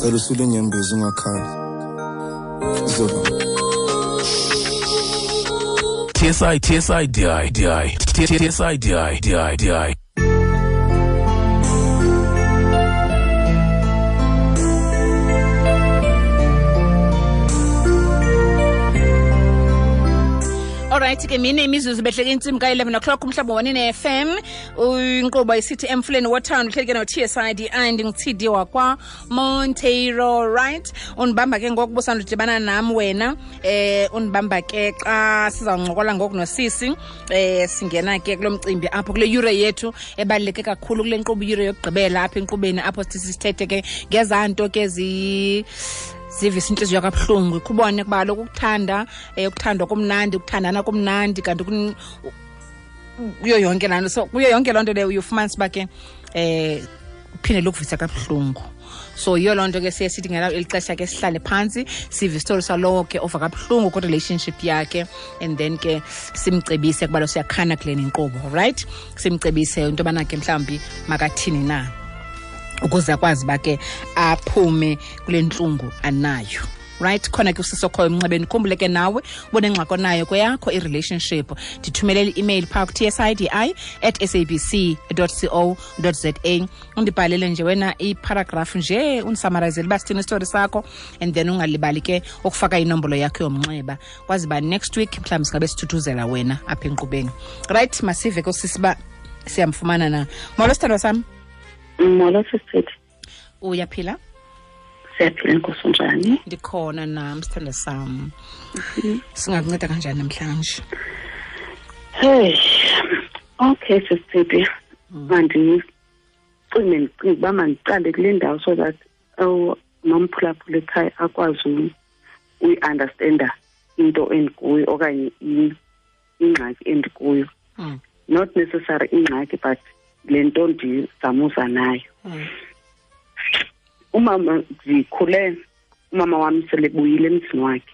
Cela usule inyembezi ungakhali. Zoba. TSI TSI DI DI TSI DI DI DI. Alright ke mine imizuzu behleke intsimbi ka-11 o'clock umhlobo wanine FM, inkqubo isithi Emfuleni Wothando, uhleli ke no-TSIDI, ndingu-TD wakwa Monteiro. Right, undibamba ke ngoku busandudibana nam wena, undibamba ke xa sizawuncokola ngoku nosisi, singena ke kulo mcimbi apho kule yure yethu ebaluleke kakhulu kule nkqubo, iyure yokugqibela apha enkqubeni, apho sithi sithethe ke ngezaa nto ke zivisa intliziyo kabuhlungu. Kubone kuba kaloku ukuthanda, ukuthandwa kumnandi, ukuthandana kumnandi, kanti kuyo yonke laa nto, so kuyo yonke loo nto leyo uyofumanisa uba ke uphinde lokuvisa kabuhlungu. So yiyo loo nto ke siye sithi ngelo eli xesha ke sihlale phantsi sive isitori salowo ke ova kabuhlungu kwi-relationship yakhe, and then ke simcebise kuba lo siyakhana kule nkqubo, right? Simcebise into yobana ke mhlawumbi makathini na ukuze akwazi uba ke aphume kule ntlungu anayo. Right, khona ke usisi okhoyo emnxebeni, khumbule ke nawe ubonengxaki onayo kweyakho i-relationship, ndithumelele i-email phaa ku-tsidi@sabc.co.za, undibhalele nje wena iparagraph nje, undisamarizele uba sithini isitori sakho, and then ungalibali ke ukufaka inombolo yakho yomnxeba, kwazi uba next week mhlawumbi singabe sithuthuzela wena apha enkqubeni. Right, masive ke usisi uba siyamfumana na. Molo sithandwa sam. Molo sisithi. Uyaphila? Siyaphila, Nkosi, unjani? Ndikhona nam sithandwa sam. Singakunceda kanjani namhlanje? Hey, okay sisithi, mandicinge ndicinge uba mandiqale kule ndawo so that nomphulaphula ekhaya akwazi uyi-understanda into endikuyo okanye ingxaki endikuyo. Not necessary ingxaki, but le nto ndizamuza nayo. Umama, ndikhule umama wam selebuyile emzini wakhe.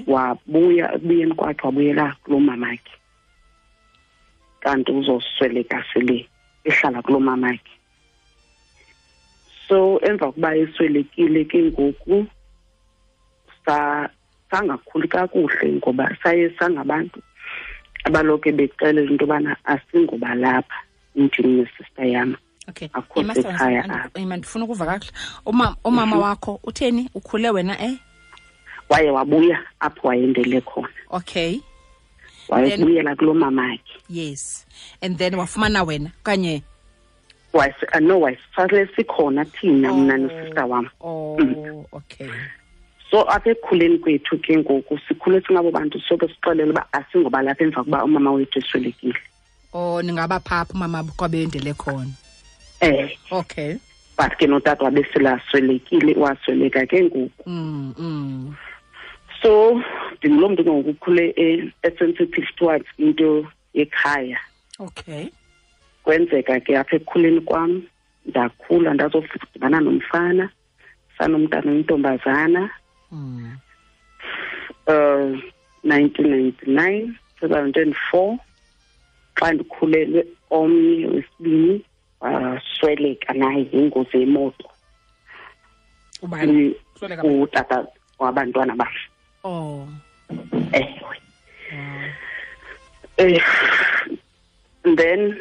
Wabuya, ekubuyeni kwakhe wabuyela kuloo mamakhe. Kanti uzosweleka sele ehlala kuloo mamakhe. So emva kokuba eswelekile ke ngoku sangakhuli kakuhle ngoba saye sangabantu abaloke bexelela into yobana asingobalapha ndim nesister yam. Okay. Akho sekhaya apha. Ima, ndifuna ukuva kakuhle. Umama wakho utheni? Ukhule wena? Waye wabuya apho wayendele khona. Wayebuyela kuloo mamakhe. Yes. And then wafumana wena okanye? No, wayesale sikhona thina, mna nosister wam. So apha ekukhuleni kwethu ke ngoku sikhule singabo bantu soke sixelele uba asingoba lapha emva kokuba umama wethu eswelekile. Oh, ningaba phaa apho umama kwabendele khona. But ke notata wabe sele aswelekile, wasweleka ke ngoku. So ndinguloo mntu ke ngoku ukhule e-sensitive towards into yekhaya. Kwenzeka ke apha ekukhuleni kwam, ndakhula ndazofudibana nomfana, sanomntana oyintombazana. 1999, 2004, xa ndikhulelwe omnye wesibini, wasweleka naye ngengozi yemoto. Ubani? Usweleka bani? Utata wabantwana bam. Ewe. Then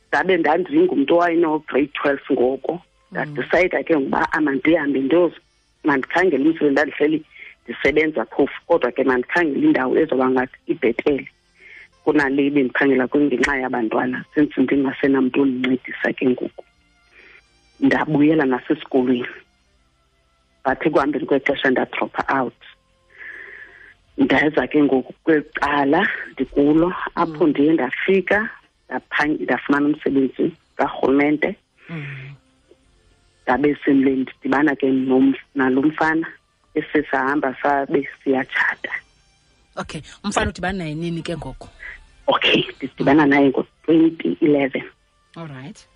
ndabe ndandingumntu owayeno grade 12 ngoko. Ndadicide ke ngokuba amandihambe mandikhangele umsebenzi, ndandihleli ndisebenza phofu, kodwa ke mandikhangele indawo ezoba ngathi ibhetele kunale bendiphangela kuyo ngenxa yabantwana, since ndingasenamntu ondincedisa ke ngoku. Ndabuyela nasesikolweni, but ekuhambeni kwexesha ndadropha out. Ndaza ke ngoku kweli cala ndikulo apho ndiye ndafika ndafumana umsebenzi karhulumente. Ndabe sele ndidibana ke nalo mfana, esisahamba sabe siyatshata. Okay, umfana udibana naye nini ke ngoku? Okay, ndidibana naye ngo-2011. All right.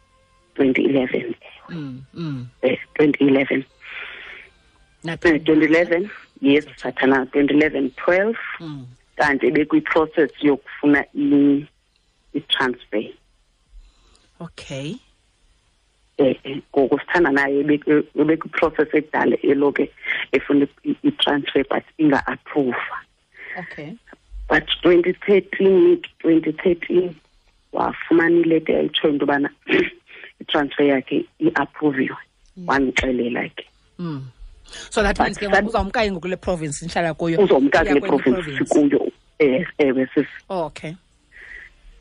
2011. 2011. Nathini? 2011, yes, sathana 2011, 12. Kanti ebekwi-process yokufuna i-transfer. Ngoku sithanda naye ebekwiprocess ekudala eloke efuna i-transfer but inga-approva. Okay. But 2013 wafumana ileta ayitshoyo into yobana i-transfer yakhe i-approviwe. Wandixelela ke. So that means ke uzawumka ngoku kule province nihlala kuyo. Uzomka kule province sikuyo. Ewe sisi. Okay.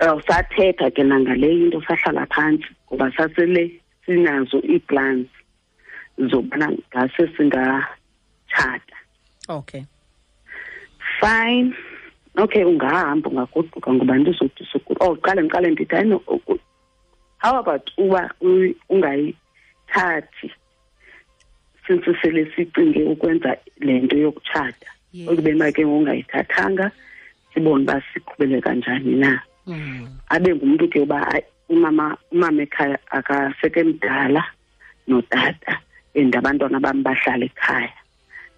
Sathetha ke nangale into, sahlala phantsi ngoba sasele sinazo ii-plans zobana ngase singatshata. Okay. Fine. Okay, ungahamba ungagoduka ngoba ndizothi suku. Oh, qale ndithi hayi, how about uba ungayithathi since sele sicinge ukwenza le nto yokutshata. Ukube make ungayithathanga sibone uba siqhubele kanjani na. Abe ngumntu ke uba umama ekhaya akasekemdala notata and abantwana bam bahlala ekhaya,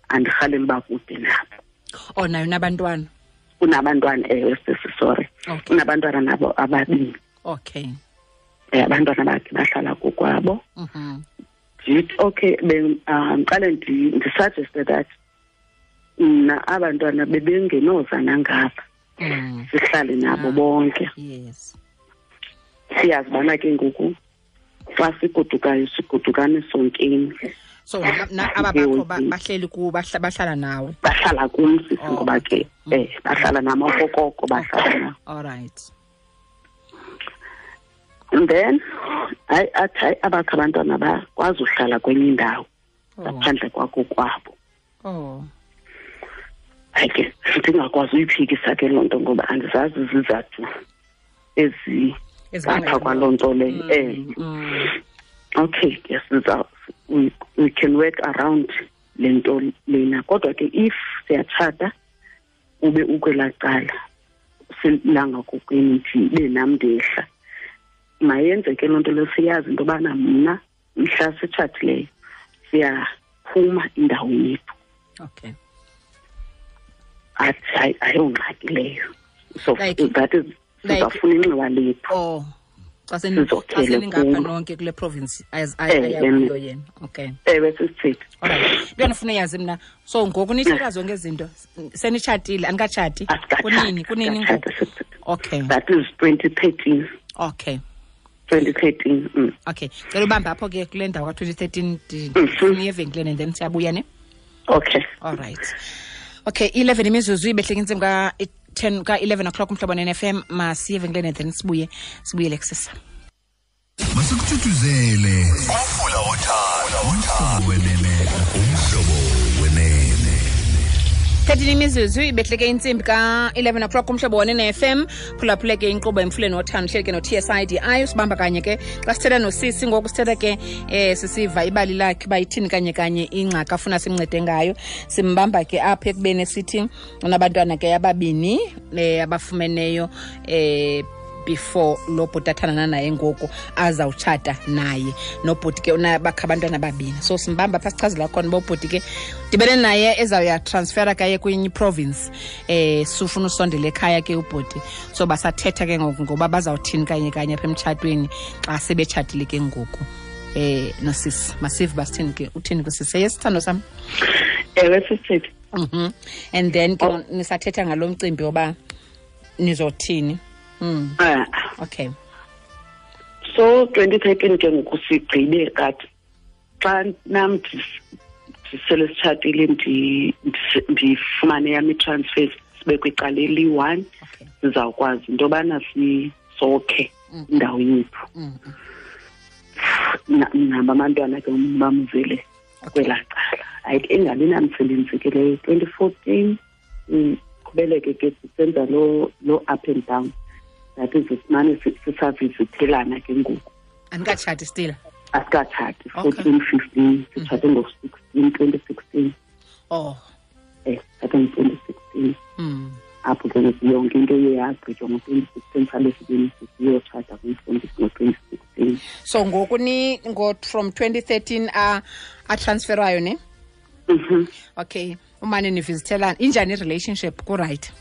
andirhaleli uba kude nabo. Oh, nayo unabantwana? Unabantwana, ewe sisi, sorry. Okay. Unabantwana nabo ababini. Okay. Abantwana bakhe bahlala kokwabo. Ndithi okay, ndiqale ndisuggeste that mna abantwana bebengenoza nangapha. Sihlale nabo bonke. Yes. Siyazi bana ke ngoku xa sigodukayo sigodukane sonkeni. So aba bakho bahleli ku bahlala nawe. Bahlala kum sisi ngoba ke bahlala nam okokoko bahlala nam. All right. And then hayi athi abakho abantwana bakwazi uhlala kwenye indawo ngaphandle kwakho kwabo. Oh. Hayi ke ndingakwazi uyiphikisa ke loo nto ngoba andizazi izizathu ezingapha kwaloo nto leyo. Okay, yes, we can work around le nto lena. Kodwa ke if siyatshata ube ukwelaa cala silangakokwenu ndibe nam ndehla, mayenzeke loo nto leyo. Siyazi into yobana mna mhla sitshatileyo siyaphuma indawo yethu. Okay. Athi hayi ayongxaki leyo. So that is sizafuna inxiwa lethu. Oh. Xa seningapha nonke kule province ayakuyo yena. Okay. Ewe sisithi. All right. Into endifuna uyazi mna, so ngoku nithetha zonke izinto senitshatile, anikatshati? Kunini ngoku? Okay. That is 2013. Okay. 2013. Okay. Cela ubambe apho ke kule ndawo ka-2013 ndifuna evenkileni and then siyabuya ne? Okay. All right. Okay, 11 imizuzu ibehleke intsimbi ka-10 ka-11 o'clock umhlobo ne-FM. Masiye evenkileni and then sibuyele kusasa. Masikuthuthuzele umfula wothando, umhlobo wenene, umhlobo wenene. 13 imizuzu ibehleke intsimbi ka-11 o'clock umhlobo wenene FM. Phulaphule ke inkqubo emfuleni wothando, uhleli ke no-TSIDI usibamba kanye ke xa sithetha nosisi ngoku sithetha ke sisiva ibali lakhe uba ithini kanye kanye ingxaki afuna simncede ngayo. Simbamba ke apha ekubeni sithi unabantwana ke ababini abafumeneyo before lo bhuti athandana naye ngoku azawutshata naye. Nobhuti ke unabakho abantwana ababini. So simbamba apha sichazela khona uba ubhuti ke dibene naye ezawuya transfera kaye kwenye province. Sufuna usondela ekhaya ke ubhuti. So basathetha ke ngoku ngoba bazawuthini kanye kanye apha emtshatweni xa sebetshatile ke ngoku. Nosisi masive basithini ke, uthini kusisi? Yes, sithando sam. Ewe sisithi. And then ke nisathetha ngalo mcimbi oba nizothini. Okay. So 2013 ke ngoku sigqibe kathi xa nam ndisele sitshatile ndifumane yam i-transfer sibe kwicala eliyi-1. Sizawukwazi into yobana sisokhe indawo yethu. Nabo abantwana ke bamzele kwelaa cala. Hayi ingabi namsebenzi ke leyo. 2014 qhubeleke ke sisenza lo up and down. That is simane sisavizithelana ke ngoku. Anikatshati still? Asikatshati. 14, 15, sitshate ngo-16, 2016. Oh. Sitshate ngo-2016. Apho ke yonke into iye yagqitywa ngo-2016, sabe siyotshata ngo-2016. So ngoku ni from 2013 atransferayo ne? Okay. Umane nivizithelana. Injani i-relationship? Ku-right?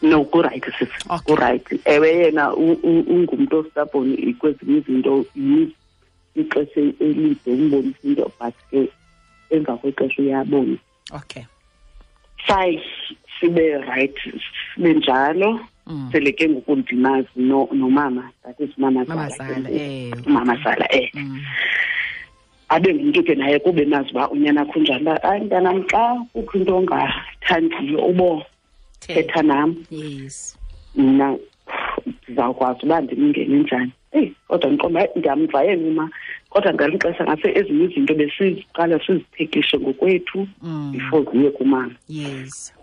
No, ku-right sisi. Ku-right. Ewe yena ungumntu ostubborn kwezinye izinto. ixesha elide umbonisa into, but ke emva kwexesha uyabona. Okay. Fine, sibe right, sibe njalo. Sele ke ngoku ndimazi nomama, that is mama Zala. Mama Zala Abe ngumntu ke naye kube nazi uba unyana akho njani, uba hayi mntanam xa kukho into ongathandiyo ubo thetha nam. Yes. Mna ndizawukwazi uba ndimngene njani. Eyi, kodwa ndiqonda hayi ndiyamva yena uma, kodwa ngelinye ixesha ngase ezinye izinto besiziqala siziphekishe ngokwethu before ziye kumama. Yes.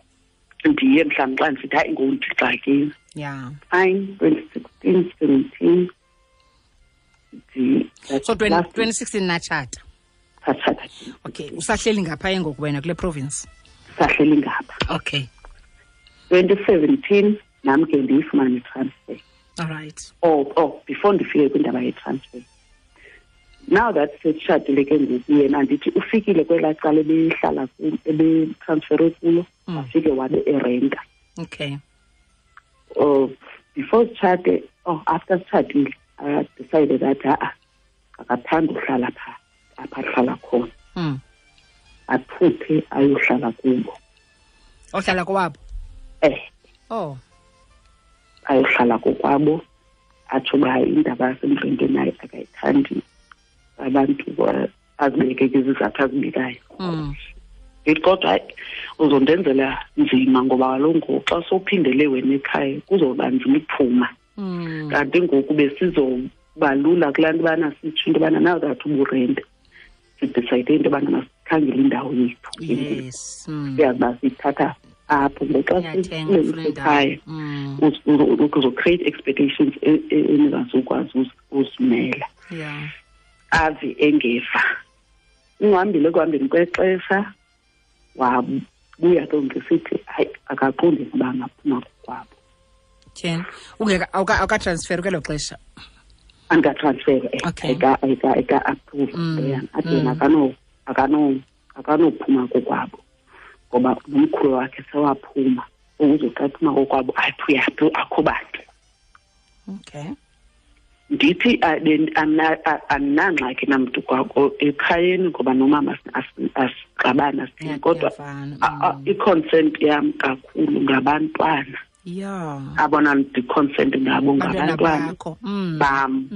Ndiye mhlawumbi xa ndisithi hayi ngoku ndixakile. Yeah. Fine, 2016, 17. So 2016 natshata. Satshata. Okay, usahleli ngapha ngoku wena kule province? Sahleli ngapha. Okay. 2017 nam ke ndiyifumane i-transfer. All right. Oh, before ndifike kwindaba ye-transfer. Now that setshatile ke ngoku yena andithi ufikile kwelaa cala ebehlala ebetransfere kulo, wafike wabe erenta. Okay. Before sitshate, after sitshatile, I decided that akathanda uhlala pha apha ahlala khona. Aphuphe ayohlala kubo. Ohlala kowabo? Oh. Ayohlala kokwabo, atsho uba indaba yasemrenteni naye akayithandi, abantu azibeke ke izizathu azibekayo. Ndithi kodwa hayi uzondenzela nzima ngoba kaloku ngoku xa sowuphindele wena ekhaya kuzoba nzima ukuphuma. Kanti ngoku besizobalula kulaa nto ubana sitsho into yobana now that uburente sidicide into yobana masikhangele indawo yethu. Yes. Siyazi uba siyithatha apho ngoxa sisekhaya uzocreate expectations eningazukwazi uzimela. Yeah. Ave engeva. Ungihambile ekuhambeni kwexesha wabuya ke ngisithi hayi akaqondi ukuba angaphuma kokwabo. Tyheni. Ungeka awukatransfer kwelo xesha? Andikatransfer. Okay. Eka approve yena. Athi yena akanophuma kokwabo ngoba nomkhulu wakhe sewaphuma. Ukuze xa ephuma kokwabo athi uyaphi akho bantu. Okay. Ndithi andinangxaki namntu kwakho ekhayeni ngoba nomama asixabana sithini, kodwa i-consent yam kakhulu ngabantwana. Yeah. Abona ndi-consent ngabo ngabantwana bam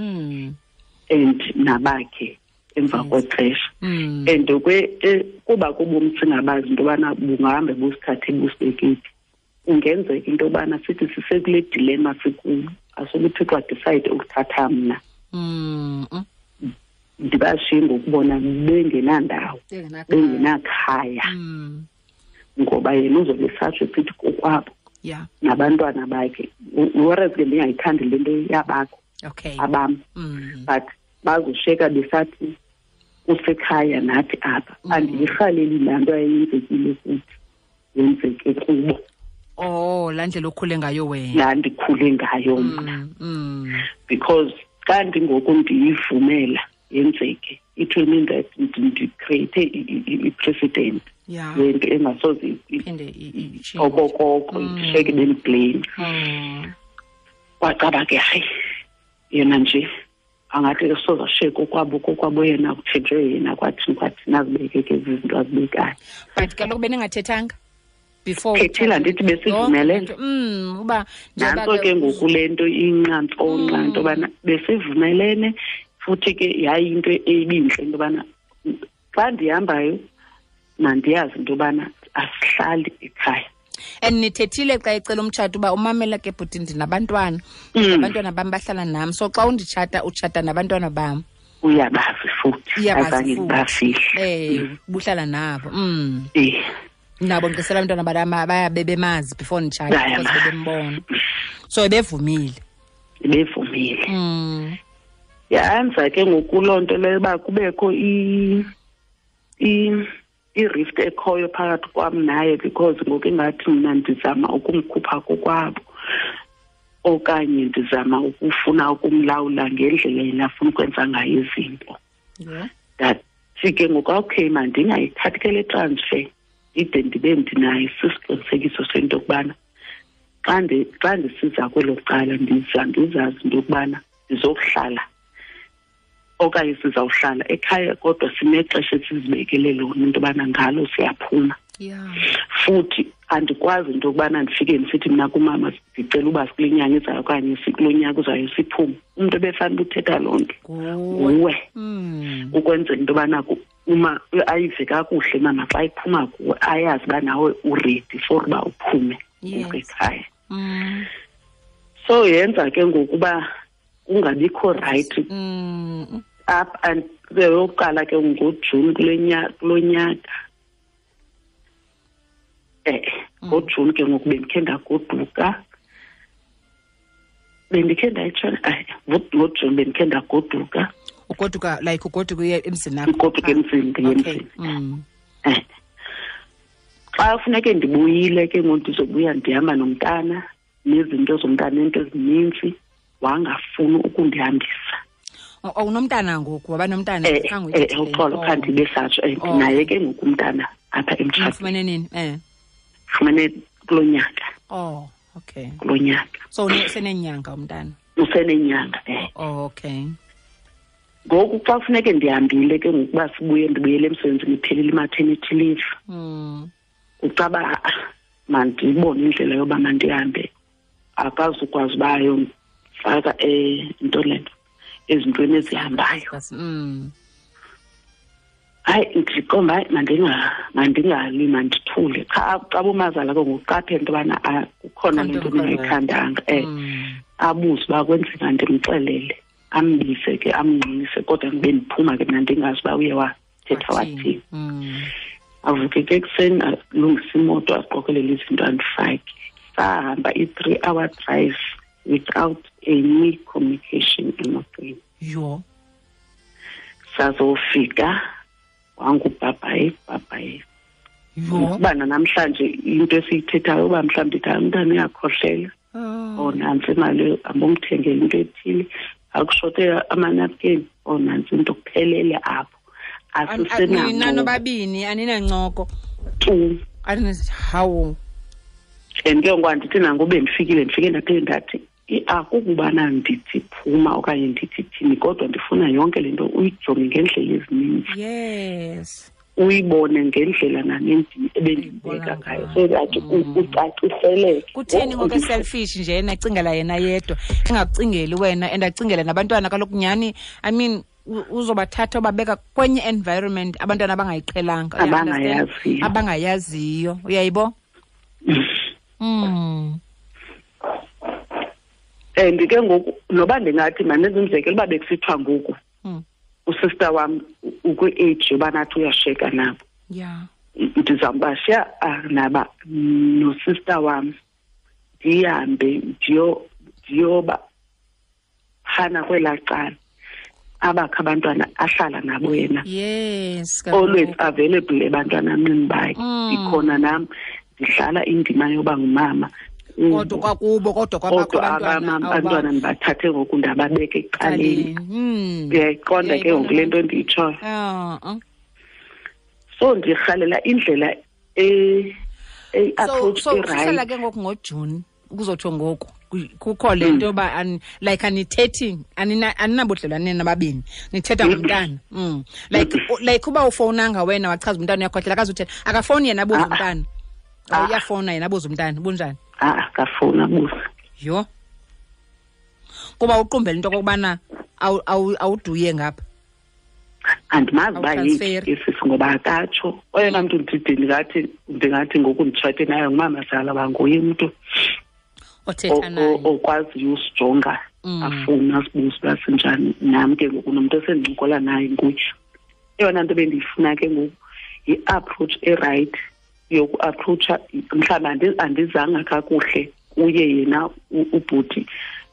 and nabakhe emva kwexesha. And kuba kubomi singabazi into yobana bungahambe busithathe busibeke phi. Kungenzeka into yobana sithi sisekule dilemma sikuyo, asuke uThixo adecide ukuthatha mna. Ndibashiye ngokubona bengenandawo, bengenakhaya. Ngoba yena uzobe esatsho esithi kokwabo. Yeah. Nabantwana bakhe. Whereas ke ndingayithandi le nto yabakho. Okay. Abam. But bazoshiyeka besathi kusekhaya nathi apha. Andiyirhaleli laa nto ayenzekile kuthi yenzeke kubo. Oh, laa ndlela okhule ngayo wena. Laa ndikhule ngayo mna. Because xa ndingoku ndiyivumela yenzeke, it will mean that ndicreate i-precedent. Yeah. Yento engasoze iphinde okokoko ndishiyeke bendiblame. Wacaba ke hayi yena nje angathi soza sheko kokwabo yena kuthenjwe yena kwathini nazibeke ke izinto azibekayo. But kaloku beningathethanga before thethile andithi besivumelene. Uba nantso ke ngoku le nto inqantsonqa into yobana besivumelene futhi ke yayinto ebintle into yobana xa ndihambayo mandiyazi into yobana asihlali ekhaya. And nithethile xa ecela umtshato uba umamela ke bhuti ndinabantwana, abantwana bam bahlala nam, so xa unditshata utshata nabantwana bam. Uyabazi futhi, azange ndibafihle. Buhlala nabo. Nabo ngisela abantwana bam bayabe bemazi before nditshata because bebembona. So bevumile. Bevumile. Yanza ke ngoku loo nto leyo uba kubekho i-rift ekhoyo phakathi kwam naye, because ngoku ingathi mna ndizama ukumkhupha kokwabo okanye ndizama ukufuna ukumlawula ngendlela yena afuna ukwenza ngayo izinto. Ndathi ke ngoku okay mandingayithathi ke le transfer ide ndibe ndinayo sisiqinisekiso sento yokubana xa ndisiza kwelo cala ndizazi into yokubana ndizokuhlala Okanye sizawuhlala ekhaya kodwa sinexesha esizibekele lona into yobana ngalo siyaphuma. Futhi andikwazi into yokubana ndifike ndisithi mna kumama ndicela uba sikule nyanga izayo okanye sikulo nyaka uzayo siphume. Umntu ebefanele uthetha loo nto nguwe, ukwenzela into yobana uma ayive kakuhle mama xa iphuma kuwe, ayazi uba nawe u-ready for uba uphume ekhaya. So yenza ke ngokuba kungabikho right up and yokuqala ke ngoJuni kulo nyaka. NgoJuni ke ngoku bendikhe ndagoduka, bendikhe ndayitshona ngoJuni bendikhe ndagoduka. Ugoduka like ugoduka uye emzini akho? Ugoduka emzini, ndiye emzini. Xa funeke ndibuyile ke ngoku, ndizobuya ndihamba nomntana nezinto zomntana neento ezininzi, wangafuni ukundihambisa. Unomntana ngoku, waba nomntana? Khange uyithethe le Uxolo, nto. khanti besatsho, ndinaye ke ngoku umntana apha emtshatweni. Ufumene nini? Ufumene kulo nyaka. Oh, okay. Kulo nyaka. So usenenyanga umntana? Usenenyanga. Oh, okay. Ngoku xa kufuneke ndihambile ke ngokuba sibuye, ndibuyele emsebenzini, iphelile i-maternity leave. Ucaba, mandibone indlela yoba mandihambe. Akazukwazi uba ayomfaka, into le nto, ezintweni ezihambayo. Hayi, ndiqonda, hayi, mandingali, mandithule. Cha, xa umazala ke ngokuqaphela into yobana, kukhona le nto ndingayithandanga. Abuze uba kwenzeka, ndimxelele, ambize ke, amngqinise, kodwa ndibe ndiphuma ke mna ndingazi uba uye wathetha wathini. Avuke ke ekuseni, alungise imoto, aqokelele izinto, andifake. Sahamba i-3 hour drive without any communication emotweni. Sazofika wangubhabhayi, bhabhayi. Ubana namhlanje into esiyithethayo uba mhlawumbi ndithi, hayi, umntana uyakhohlela. Oh, nantsi imali, ambomthengele into ethile. Akushote amanapkeni. Oh, nantsi into, kuphelele apho. Asisenancoko. Nina nobabini aninancoko. Tu. Hawu. And ke ngoku andithi nangoku bendifikile, ndifike ndaphinde ndathi, akukubana ndithi phuma okanye ndithi thini, kodwa ndifuna yonke le nto uyijonge ngendlela ezininzi. Uyibone ngendlela nami ebendibeka ngayo, so that ucaciseleke. Kutheni ngoku selfish nje yena acingela yena yedwa, engakucingeli wena and acingele nabantwana? Kaloku nyhani, uzobathatha ubabeka kwenye environment abantwana abangayiqhelanga, you understand? Abangayaziyo. Abangayaziyo, uyayibo? And ke ngoku noba ndingathi mandenze umzekelo uba bekusithiwa ngoku usister wam ukwi-age yoba nathi uyasheka nabo. Ndizawubashiya naba nosister wam, ndihambe ndiyoba phana kwelaa cala abakho abantwana ahlala nabo yena. Always available ebantwaneni bakhe. Ndikhona nam ndihlala indima yoba ngumama. Kodwa kwakubo, kodwa kwabakho Kodwa abantwana, abamama, abantwana ndibathathe ngoku ndababeka ecaleni. Uyayiqonda ke ngoku le nto ndiyitshoyo. So ndirhalela indlela approach e-right. Sihlala ke ngoku ngoJuni, kuzotsho ngoku kukho le nto yoba like anithethi, aninabudlelwane nababini, nithetha ngomntana. Like uba ufowunanga wena wachaza umntana uyakhohlela, akazuthetha. Akafowuni yena abuze umntana. Uyafowuna yena abuze umntana, bunjani? Akafowuni abuze. Yho. Kuba uqumbele into okokubana awuduye ngapha. Andimazi uba Awutransferi. yeyiphi isisi ngoba akatsho. Oyena mntu ndide ndingathi ngoku nditshate naye ngumamazala, uba nguye umntu othetha naye. okwaziyo usijonga, afune asibuze uba sinjani. Nam ke ngoku nomntu esendincokola naye nguye. Eyona nto bendiyifuna ke ngoku yi-approach e-right yoku-approacha, mhlawumbi andizanga kakuhle kuye yena ubhuti,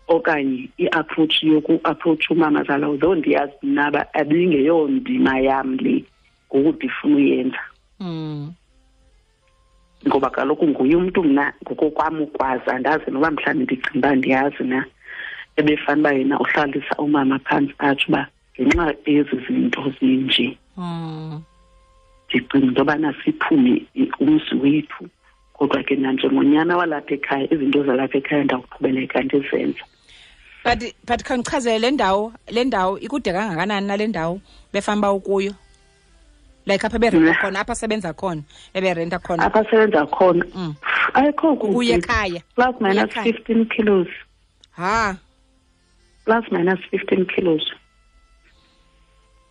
okanye i-approach yoku-approach umamazala, although ndiyazi mna uba abingeyondima yam le ngoku ndifuna uyenza. Ngoba kaloku nguye umntu mna ngokokwam ukwazi, andazi noba mhlawumbi ndicinga uba ndiyazi na, ebefana uba yena uhlalisa umama phantsi atsho uba ngenxa yezi zinto zinje. Ndicinga into yobana siphume umzi wethu, kodwa ke nanjengonyana walapha ekhaya, izinto zalapha ekhaya ndawuqhubeleka ndizenza. But khawundichazele le ndawo ikude kangakanani nale ndawo befamba ukuyo? Like apha berenta khona, apha sebenza khona, eberenta khona. Apha sebenza khona. Ayikho kude. Kuye ekhaya. Plus minus 15 kilos. Ha. Plus minus 15 kilos.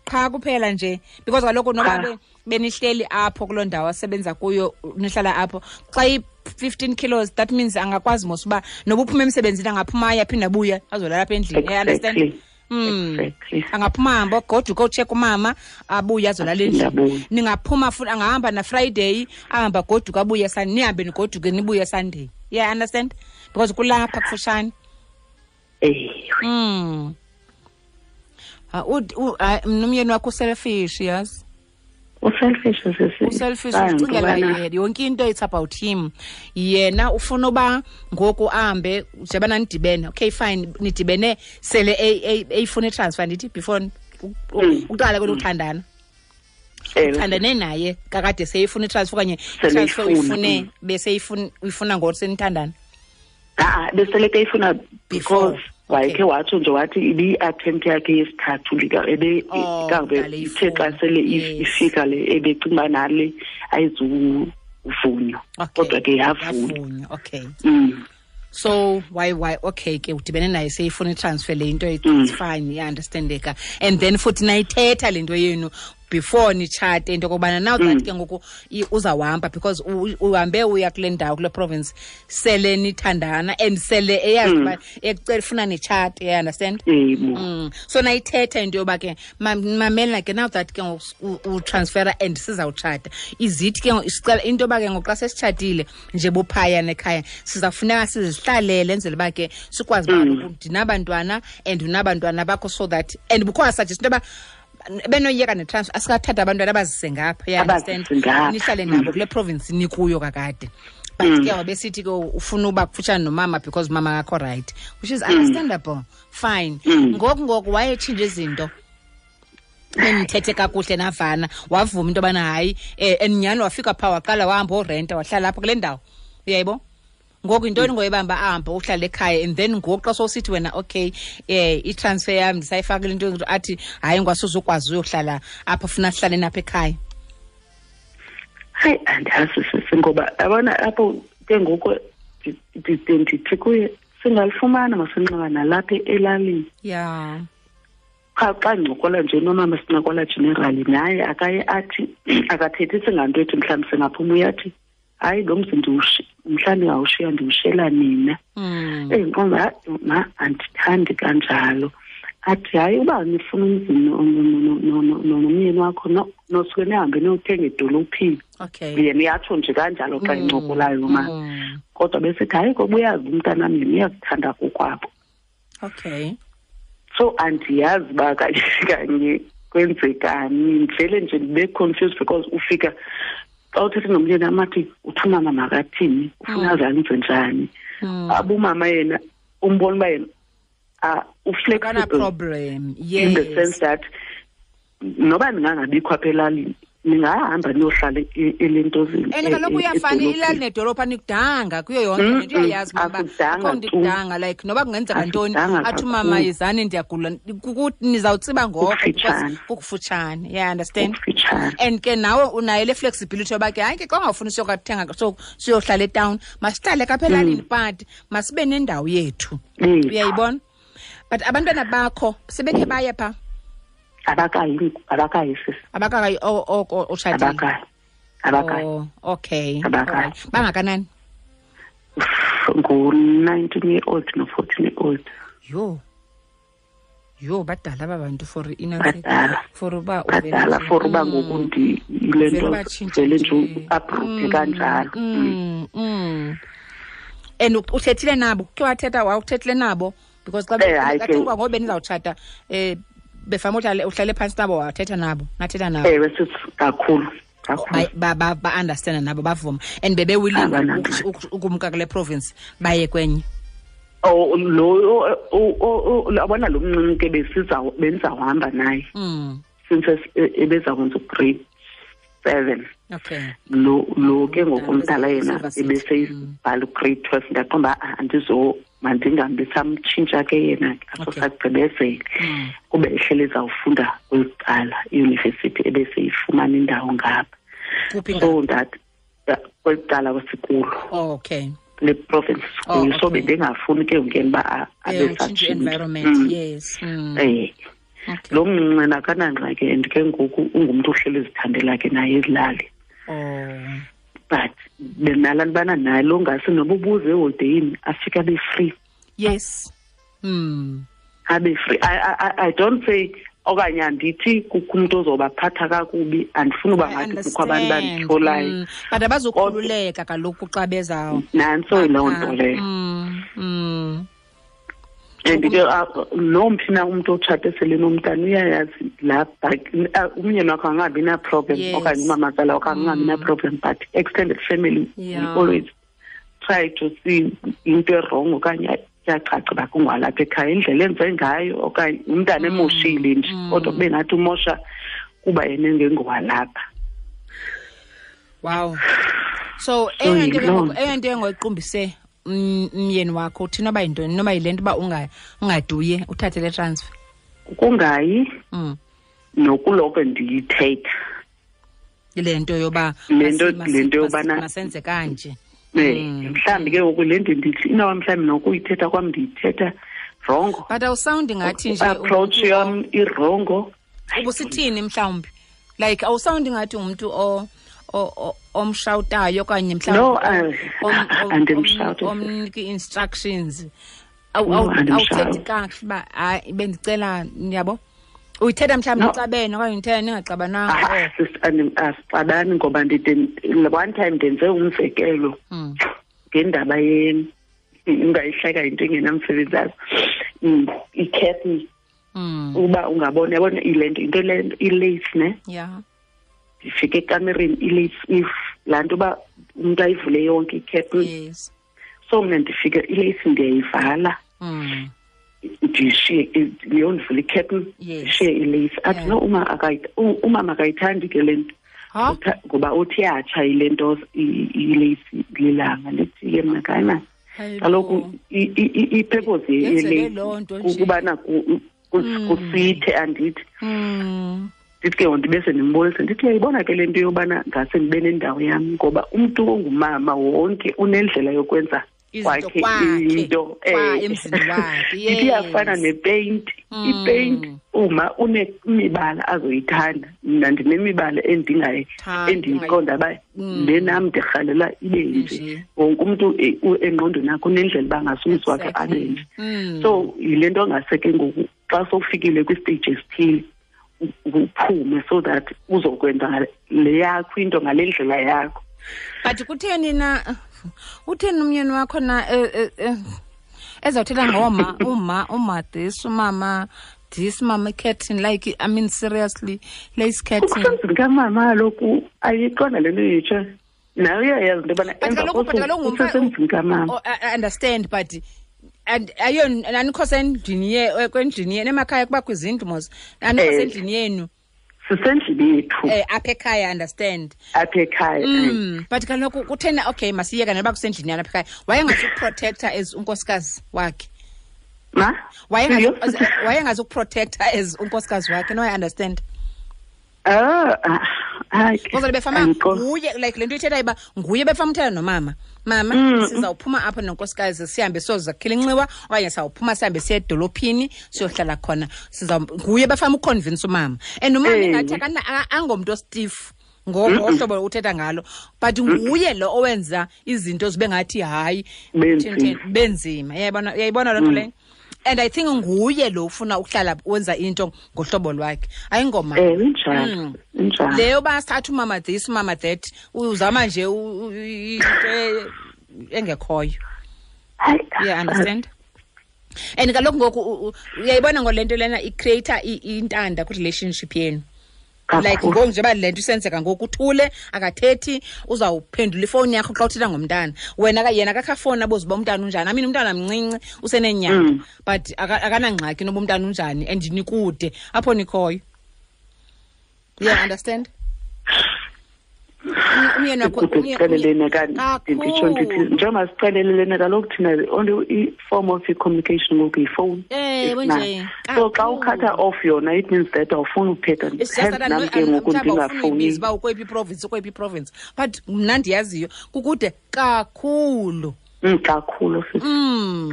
Qha kuphela nje because kaloku noba benihleli apho kuloo ndawo asebenza kuyo, nihlala apho, xa i-15 kilos that means angakwazi mos uba noba uphuma emsebenzini angaphuma aye aphinde abuye azolala apha endlini. You understand? Exactly. Angaphuma ahambe goduka otsheka umama abuye azolala endlini. Ningaphuma futhi angahamba na Friday ahamba goduka abuye Sunday, nihambe nigoduke nibuye Sunday. Yeah, understand? Because kulapha kufushane. Nomyeni wakho uselfish, yazi. Uselfish sisi. Uselfish, ucingela yena. Yonke into it's about him. Yena ufuna uba ngoku ahambe njengoba nidibene. Okay fine, nidibene sele eyifuna itransfer ndithi before uqala kweluthandana. Uthandane naye kakade seyifuna itransfer okanye itransfer uyifune bese uyifuna ngoku senithandana. Besele eyifuna because wayekhe watsho nje wathi ibi-attempt yakhe yesithathu ebe ithe xa sele ifika le ebecinga uba nale ayizuvunywa, kodwa ke yavunywa. Okay. So why okay ke udibene naye seyifuna itransfer le into, it's fine, iyaunderstandeka. And then futhi nayithetha le nto yenu before nitshate into okokubana now that ke ngoku uzawuhamba because uhambe uya kule ndawo kule province sele nithandana and sele eyazi uba ekucela ufuna nitshate, you understand? So nayithetha into yoba ke mamela ke now that ke ngoku utransfera and sizawutshata, izithi ke sicela into yoba ke ngoku xa sesitshatile nje buphaya nekhaya sizawufuneka sizihlalele enzele uba ke sikwazi uba ndinabantwana and unabantwana bakho, so that and bukho suggest into yoba benoyeka netransfer asikathatha abantwana abazise ngapha, you understand? Nihlale nabo kule province nikuyo kakade. But ke wabesithi ke ufuna uba kufutshane nomama because mama akakho right, which is understandable, fine. Ngoku wayetshintsha izinto benithethe kakuhle navana, wavuma into yobana hayi and nyhani wafika phaa waqala wahamba orenta wahlala apha kule ndawo, uyayibo? Ngoku yintoni ngoyibamba ahambe uhlale ekhaya and then ngoku xa sowusithi wena okay i-transfer yam ndisayifakile into athi hayi ngwasuzukwazi uyohlala apha funa sihlale napha ekhaya. Hayi andazi sisi ngoba yabona apho ke ngoku ndithi kuye singalifumana masinxiba nalapha elalini. Yeah. Qha xa ndincokola nje nomama sincokola generally naye akaye athi akathethisi nganto ethi mhlawumbi singaphuma, uyathi hayi lo mzi mhlawumbi ngawushiya ndiwushela nina. Endiqonda ma andithandi kanjalo. Athi hayi uba nifuna umzi nomyeni wakho nosuke nihambe niyothenga edolophini. Okay. Yena uyatsho nje kanjalo xa encokolayo ma. Kodwa besithi hayi ngoba uyazi umntanam yena uyakuthanda kokwabo. Okay. So andiyazi uba kanye kanye kwenzekani, ndivele nje ndibe confused because ufika xa uthethe nomyeni amathi uthi umama makathini, ufuna azenze njani. Abumama yena umbona uba yena uflexible problem, yes, in the sense that noba ndingangabikho apha elalini ningahamba niyohlala elentozini. And kaloku uyafana ilali nedolophu anikudanga kuyo yonke le nto, uyayazi uba akho nto ikudanga, like noba kungenzeka ntoni athi umama yizani ndiyagula, nizawutsiba ngoko because kukufutshane, yeah, understand? And ke nawe unayo le flexibility yoba ke hayi ke xa ungafuni siyokathenga siyohlala etown, masihlale kapha elalini but masibe nendawo yethu, uyayibona? But abantwana bakho sebekhe baye phaa? Abakayi sisi. Abakayi oko utshatile? Abakayi. Oh, okay. Abakayi. Bangakanani? Ngu-19 year old no-14 year old. Yho, badala aba bantu for badala. For uba badala for uba ngoku ndiyile nto vele nje uabruphe kanjalo. And uthethile nabo? Khe wathetha wawuthethile nabo? Because xa xa ngoba benizawutshata befama uhlale phantsi nabo wathetha nabo, nathetha nabo. Ewe sisi, kakhulu. Ba-understanda nabo bavuma and bebe-willing ukumka kule province baye kwenye. Oh lo abona lo mncinci ke bendizawuhamba naye. Since ebezakwenza ugrade 7. Okay. Lo ke ngoku umdala yena ebeseyibhala ugrade 12, ndaqonda uba Mandingahambi samtshintsha ke yena ke, aso sagqibezele. Kube ehlele ezawufunda kweli cala iyunivesithi ebeseyifumana indawo ngapha. Kuphi? So that kweli cala kwesikulo. Oh, okay. Le province sikuyo. Oh, So okay. bendingafuni ke ngoku yena uba abe Utshintshe satshintsha. environment. Yes. Okay. Lo mncinci akanangxaki, and ke ngoku ungumntu ohleli ezithandela ke naye ezilali. Oh. But benalaa nto ubana naye lo ngase noba ubuze eholideyini afike abe free. Yes. Abe free. I don't say okanye andithi kukho umntu ozobaphatha kakubi, andifuni uba I ngathi kukho abantu understand. banditholayo. But abazukhululeka kaloku xa beza. Nantso yiloo nto leyo. And ke nomphi na umntu otshate sele nomntana uyayazi laa umyeni wakho angabi na-problem okanye umamazala wakho angabi na-problem, but extended family we always try to see into e-wrong okanye iyacaca uba kungwalapha ekhaya indlela enze ngayo okanye umntana emoshile nje, kodwa kube ngathi umosha kuba yena engengowalapha. Wow. So, So, eyona nto ke yiloo ngoku, eyona nto engoyiqumbise umyeni wakho uthi noba yintoni, noba yile nto uba ungaduye uthathe le transfer. Kungayi nokuloko ndiyithetha. Le nto yoba Le nto, le nto yobana masenze kanje. Mhlawumbi ke ngoku le nto ndithi inoba mhlawumbi nokuyithetha kwam ndiyithetha wrongo. But awusawundi ngathi nje Approach ungumntu yam irongo. Ubusithini mhlawumbi? Like awusawundi ngathi ungumntu omshawutayo okanye mhlawumbi No, andimshawuti. omnika i-instructions. No, andimshawuti. Awuthethi kakuhle uba hayi bendicela, yabo? Uyithetha mhlawumbi No. nixabene okanye uyithetha ningaxabananga? Sis, asixabani ngoba ndide, one time ndenze umzekelo ngendaba ye, ungayihleka into engenamsebenzi azo. I-curtain. Uba ungabona, yabona ile nto, into le nto, i-lace, ne? Ndifike ekamereni, i-lace, if laa nto uba umntu ayivule yonke i-curtain. So mna ndifike i-lace ndiyayivala. Ndishiye, leyo ndivule i-curtain, ndishiye i-lace. Athi, no, umama akayithandi ke le nto. Ha? Ngoba uthi iyatsha ile nto, i-lace lilanga. Ndithi ke mna, hayi man. Hayi Kaloku bo. i-purpose Yenzele ye-lace loo nto nje. kukubana kusithe, andithi. Ndithi ke ngoku ndibe sendimbonisa, ndithi uyayibona ke le nto yobana ngase ndibe nendawo yam, ngoba umntu ongumama wonke unendlela yokwenza Izinto kwakhe kwakhe, into, kwa emzini wakhe, Ndithi iyafana yes. nepeyinti. Ipeyinti uma unemibala azoyithanda, mna ndinemibala Thanda, endiyiqonda uba le nam ndirhalela ibe nje. Nje. Wonke umntu engqondweni yakhe unendlela uba ngase umzi wakhe abe nje. So yile nto ngase ke ngoku xa sowufikile kwistage esithile uphume so that uzokwenza le yakho into ngale ndlela yakho. But kutheni na, utheni umyeni wakho na ezawuthetha ngoma, uma, uma this, umama this, mama curtain, like, I mean, seriously, lace curtain. Ukusemzini kamama kaloku ayiqonda le nto itsha. Nawe uyayazi into yobana But emva kaloku, but kosuku kaloku ngumfa- usesemzini kamama. Oh, I understand, but and ayo anikho sendlini ye, kwendlini yenu emakhaya kubakho izindlu mos. Anikho sendlini yenu. Sisendlini yethu. Apha ekhaya, understand. Apha ekhaya, But kaloku kuthena, okay, masiyeka noba kusendlini yenu apha ekhaya. Wayengazukuprotecta as unkosikazi wakhe. Ma? Iyo? Wayengazukuprotecta as unkosikazi wakhe, no, I understand. Hayi. Ngoba befama Andikho. nguye, like le nto ithetha uba nguye befama uthetha nomama. Mama, sizawuphuma apha nonkosikazi sihambe siyozakhela inxiwa okanye sawuphuma sihambe siye edolophini siyohlala khona. Nguye befama uconvince umama. And umama ingathi angomntu ostiff ngohlobo uthetha ngalo, but nguye lo owenza izinto zibe ngathi hayi, Benzima. benzima. Uyayibona loo nto leyo? And I think nguye lo ufuna ukuhlala wenza into ngohlobo lwakhe. Ayingoma. Injalo. Injalo. Leyo basithatha umama this, umama that, uzama nje into engekhoyo. Hayi, Yeah, understand? And kaloku ngoku uyayibona ngole nto lena i-creator intanda kwi-relationship yenu. Kakhulu. Like ngoku njengoba le nto isenzeka ngoku uthule akathethi, uzawuphendula ifowuni yakho xa uthetha ngomntana. Wena ka, yena akakho afowuni abuze uba umntana unjani. I mean, umntana mncinci useneenyanga, but akanangxaki noba umntana unjani and nikude apho nikhoyo. Yeah, understand? Umyeni wakho Sicelelene kanti nditsho ndithi njengoba sicelelene kaloku thina the only form of communication ngoku yifowuni. Ewe nje. So xa ukhatha off yona, it means that awufuni ukuthetha. Hence nam ke ngoku ndingafowuni. Uba ukweyiphi iprovince, ukweyiphi iprovince, but mna ndiyaziyo kukude kakhulu. Kakhulu sisi.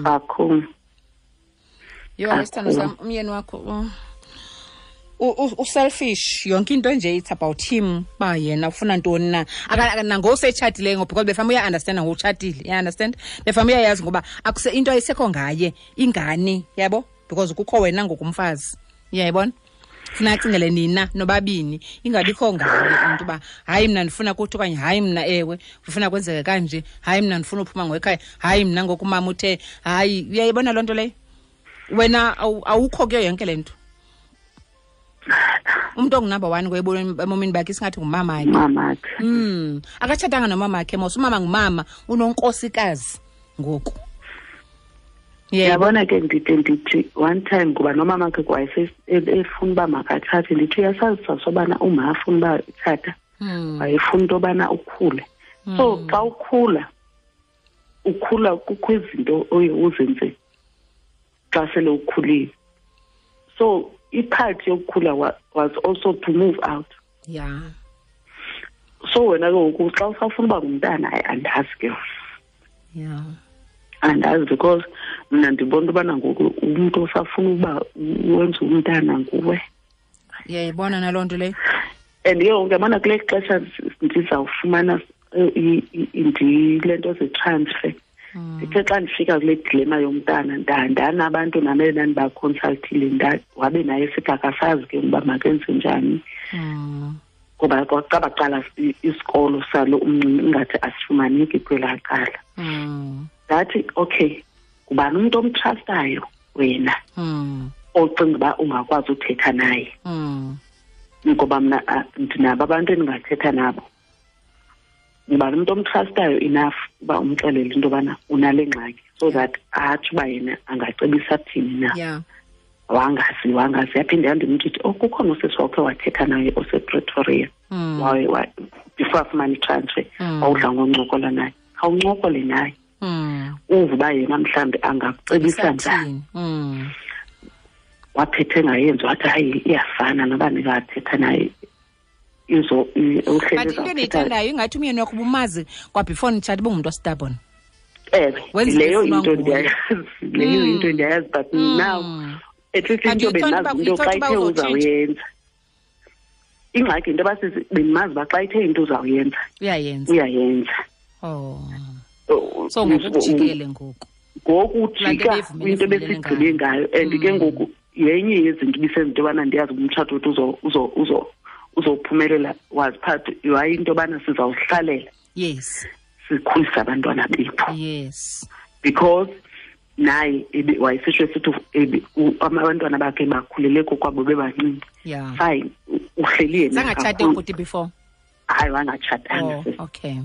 Kakhulu. Yho, isithando sam, umyeni wakho uselfish, yonke into nje it's about him, uba yena ufuna ntoni na. Nangoku setshatile ngoku, because befana uya-understanda ngoku utshatile, uya-understand, befana uyayazi ngoba akuse into ayisekho ngaye ingane, yabo, because kukho wena ngoku umfazi, uyayibona, funa acingele nina nobabini, ingabikho ngaye umntu uba hayi mna ndifuna kuthi, okanye hayi mna ewe ndifuna kwenzeke kanje, hayi mna ndifuna uphuma ngoekhaya, hayi mna ngoku umama uthe hayi, uyayibona loo nto leyo. Wena awukho kuyo yonke le nto. Umntu ongunumber 1 ebomini bakhe isingathi ngumamakhe. Mamakhe. Akatshatanga nomamakhe mos, umama ngumama, unonkosikazi ngoku. Yabona ke ndithi one time kuba nomamakhe kwayese efuna uba makathathe, ndithi uyasazi sasobana uma afuna uba ithatha, wayefuna into yobana ukhule. So xa ukhula, ukhula kukho izinto oye uzenze xa sele ukhulile. So ipart yokukhula was also to move out. Yeah. So wena ke ngoku xa usafuna uba ngumntana, hayi andazi ke. Yeah. Andazi because mna ndibona ubana ngoku umntu osafuna uba wenze umntana nguwe. Uyayibona naloo nto leyo? And ke ngoku yabona kule xesha ndizawufumana le nto ze-transfer. Ndithe xa ndifika kule dilema yomntana, ndanabantu nam endandibaconsultile, wabe naye sithi akasazi ke uba makenze njani. Ngoba kwaqala qala isikolo salo umncinci ingathi asifumaneki kwelaa cala. Ndathi okay, ngubani umntu omtrustayo wena ocinga uba ungakwazi uthetha naye? Ngoba mna ndinabo abantu endingathetha nabo. Ngubani umntu omtrustayo enough uba umxelele into yobana unale ngxaki, so that atsho uba yena angacebisa thini na. Yeah. Wangazi yaphinde yandimntu ithi, oh, kukhona usisi wakhe wathetha naye osePretoria. Before afumane itransfer, wawudla ngoncokola naye. Khawuncokole naye. Uve uba yena mhlawumbi angakucebisa njani. Waphethe engayenzi, wathi hayi iyafana noba ndingathetha naye. But into endiyithandayo ingathi umyeni wakho ubumazi kwa before nitshata ubungumntu ostubborn. Leyo into ndiyayazi, leyo into ndiyayazi, but now at least into bendimazi into xa ithe uzawuyenza. Ingxaki into yoba bendimazi uba xa ithe into uzawuyenza, uyayenza. Uyayenza. Oh. So ngoku ujikele ngoku. Ngoku ujika into besigqibe ngayo, and ke ngoku yenye yezinto ibisenza into yobana ndiyazi uba umtshato wethu uzophumelela was part yayi into yobana sizawuhlalela. Yes. Sikhulise abantwana bethu. Yes. Because naye wayesisho esithi abantwana bakhe bakhulele kokwabo bebancinci. Yeah. Fine, uhleli yena. Zangatshate ubhuti before? Hayi, wangatshatanga. Oh, okay.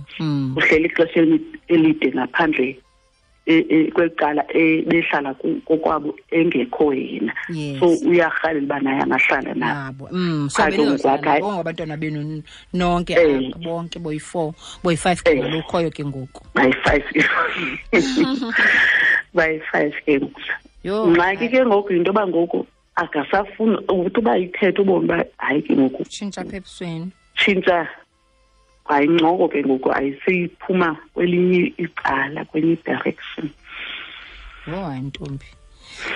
Uhleli ixesha elide ngaphandle kwecala behlala kokwabo engekho yena. Yes. So uyarhalela uba naye angahlala nabo. So benizohlala bonke abantwana benu nonke apha, bonke boyi-4, boyi-5 ke ngolukhoyo ke ngoku. Bayi-5. Bayi-5 ke ngoku. Yho, Ngxaki ke ngoku yinto yoba ngoku akasafuni ukuthi uba ithethe ubone uba hayi ke ngoku. Tshintsha apha ebusweni. Tshintsha. Hayi, incoko ke ngoku ayiseyiphuma kwelinye icala, kwenye direction. Yho, hayi ntombi.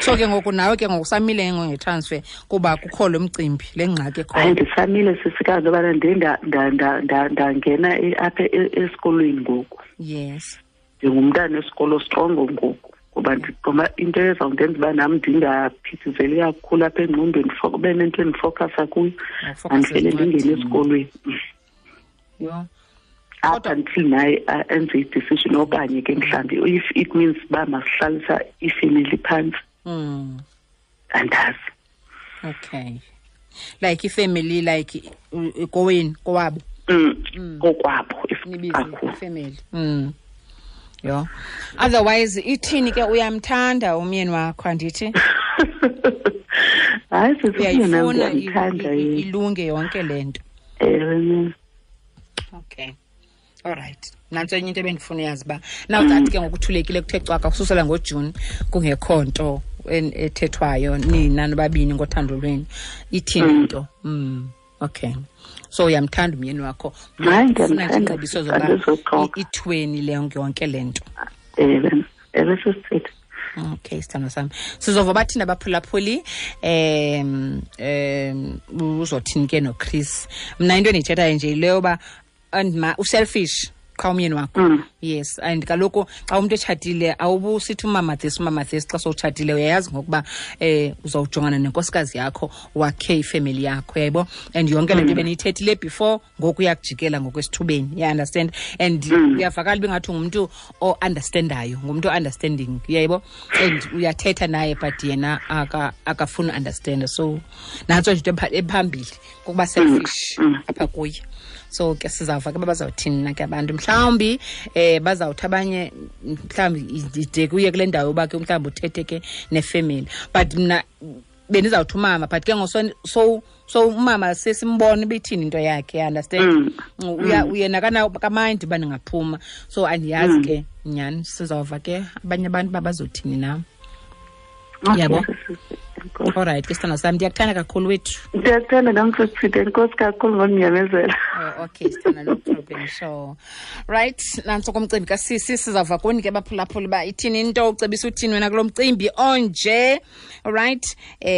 So ke ngoku nawe ke ngoku usamile ke ngoku ngetransfer kuba kukho lo mcimbi, le ngxaki ekhoyo. Hayi, ndisamile sisikazi yobana ndiye ndangena apha esikolweni ngoku. Yes. Ndingumntana wesikolo strongo ngoku. Ngoba ndiqoma into ezawundenza uba nam ndingaphithizeli kakhulu apha engqondweni, kube nento endifowukhasa kuyo, Ufowukhase andivele ndingene ezincwadini. esikolweni. Yho. Up Kodwa until naye enze i-decision okanye ke mhlawumbi if it means uba masihlalisa ifemeli phantsi. Andazi. Okay. Like ifemeli, like kowenu, kowabo. Kokwabo, if Nibize kakhulu. ifemeli. Yho. Otherwise ithini ke, uyamthanda umyeni wakho andithi? Hayi, sisi, umyeni wam Uyayifuna ndiyamthanda yena. ilunge yonke le nto. Ewe. Okay, alright, nantso enye into ebendifuna uyazi uba now that ke ngokuthulekile kuthe cwaka kususela ngoJuni kungekho nto ethethwayo nina nobabini ngothando lwenu, ithini into? Okay, so uyamthanda umyeni wakho? Hayi, Ufuna nje ndiyamthanda, iingcebiso zoba andizoxoka. ithweni le yonke le nto. Ewe, ewe, sisithethe. Okay, sithando sami, sizova bathini abaphulaphuli, uzothini ke noChris. Mna into endiyithethayo nje yile yoba and uselfish qha umyeni wakho. Yes, and kaloku xa umntu etshatile awubusithi umama this, umama this. Xa sowutshatile uyayazi ngokuba uzawujongana nenkosikazi yakho, wakhe ifemeli yakho, yayibo, and yonke le nto beniyithethile before ngoku uyakujikela ngokwesithubeni, you understand? And uyavakala uba ingathi ungumntu o-understandayo, ngumntu o-understanding, uyayibo, and uyathetha naye but yena akafuni understanda. So nantso nje into ephambili kukuba selfish apha kuye. So ke sizawuva ke uba bazawuthini na ke abantu. Mhlawumbi bazawuthi abanye mhlawumbi ide kuye kule ndawo yoba ke mhlawumbi uthethe ke nefemeli, but mna bendizawuthi umama, but ke ngoku so umama sesimbona ibithini into yakhe, you understand? Uyena kamandi uba ndingaphuma, so andiyazi ke nyhani. Sizawuva ke abanye abantu uba bazothini na. Okay, Yabo. sisithethe. Enkosi. Alright ke sithando sami, ndiyakuthanda kakhulu wethu. Ndiyakuthanda nam, sisithethe. Enkosi kakhulu ngondinyamezela. Oh, okay, sithanda, no problem. Sure. Right, nantso komcimbi kasisi, sizawuva kuni ke baphulaphuli uba ithini into, ucebisa uthini wena kulo mcimbi onje. Alright,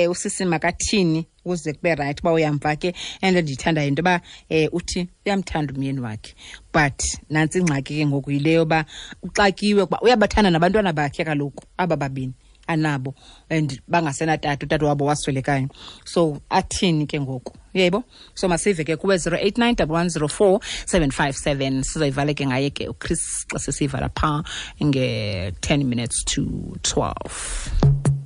usisi makathini ukuze kube right uba uyamva ke. And ndiyithandayo into yoba uthi uyamthanda umyeni wakhe, but nantsi ingxaki ke ngoku yile yoba uxakiwe kuba uyabathanda nabantwana bakhe kaloku aba babini anabo, and bangasenatata, utata wabo waswelekayo. So athini ke ngoku, uyayibo? So masive ke kuwe 089 110 4757. Sizoyivala ke ngaye ke uChris xa sesiyivala phaa nge-10 minutes to 12.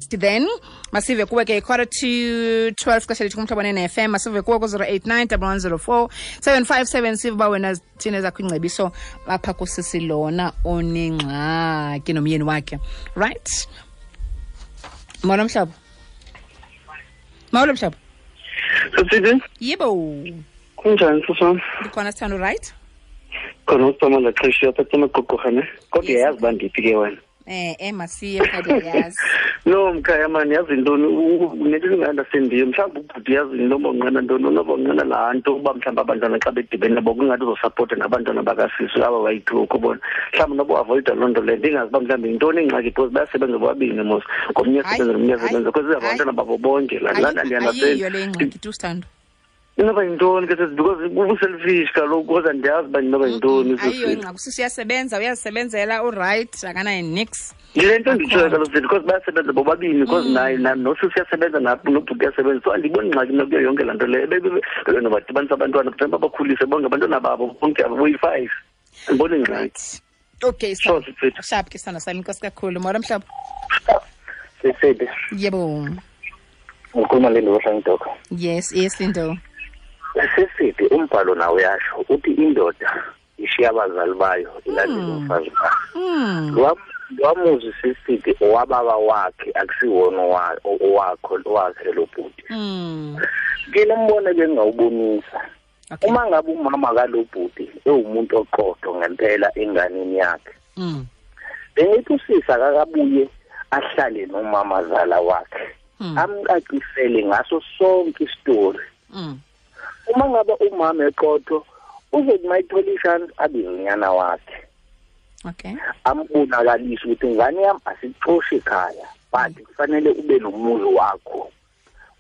Then masive kuwe ke 11:45 xesha lethu kuMhlobo ne-FM. Masive kuwe ku-089 110 4757, sive uba wena thina ezakho ingcebiso apha kusisi lona onengxaki nomyeni wakhe. Right, molo mhlobo, molo mhlobo. Sisidi, Yebo. kunjani sisam? Ndikhona sithando, right? Khona usama laxesha apha emaqoqorha ne. Kodwa Yes. uyayazi uba ndiphi ke wena. Masiye phakathi, yazi. No mkhaya mani, yazi ntoni, nento endinga-understandiyo mhlawumbi ubhuti yazi noba unqena ntoni, noba unqena laa nto uba mhlawumbi abantwana xa bedibene nabo kungathi uzosapota nabantwana bakasisi aba bayi-two, ukubona mhlawumbi noba uavoyida loo nto leyo. Ndingazi uba mhlawumbi yintoni ingxaki because bayasebenza bobabini mos, ngomnye Hayi, asebenza nomnye hayi, asebenza because hayi. abantwana babo bonke laa nto andiunderstand. Ayiyo le ingxaki tu, sithando. Inoba yintoni ke sisi? Because ubuselfish kaloku, kodwa ndiyazi uba inoba yintoni. Ayiyo Sisi. ingxaki, usisi uyasebenza, uyazisebenzela, uright, akanayo nix. Yile nto nditshoyo Akho. kaloku sisi, because bayasebenza bobabini, because naye nosisi uyasebenza, nobhuti uyasebenza, so andiyiboni ingxaki mna kuyo yonke laa nto leyo. Bebenobadibanisa abantwana kufanele babakhulise bonke abantwana babo bonke abo boyi-five, andiboni ingxaki. Right, okay. Sure, sisi. Sharp ke sithando sami, inkosi kakhulu. Molo mhlobo. Sisidi, Yebo. ngikhuluma le ndoda Dok. Yes, Lindo. Sisidi, umbhalo nawo uyasho uthi indoda ishiya abazali bayo ilandele umfazi wayo. Lwamuzi sisidi owababa wakhe, akusiwona owakho owakhe lo bhuti. Ke lo mbono bengawubonisa. Okay. Uma ngabe umama kalo bhuti ewumuntu oqotho ngempela enganeni yakhe, bengithi usisa akakabuye ahlale nomama zala wakhe, amcacisele ngaso sonke isitori. Uma ngabe umama eqotho uzothi mayithola ishance abize unyana wakhe, ambonakalise ukuthi ingane yami asixoshi ekhaya, but kufanele ube nomuzi wakho,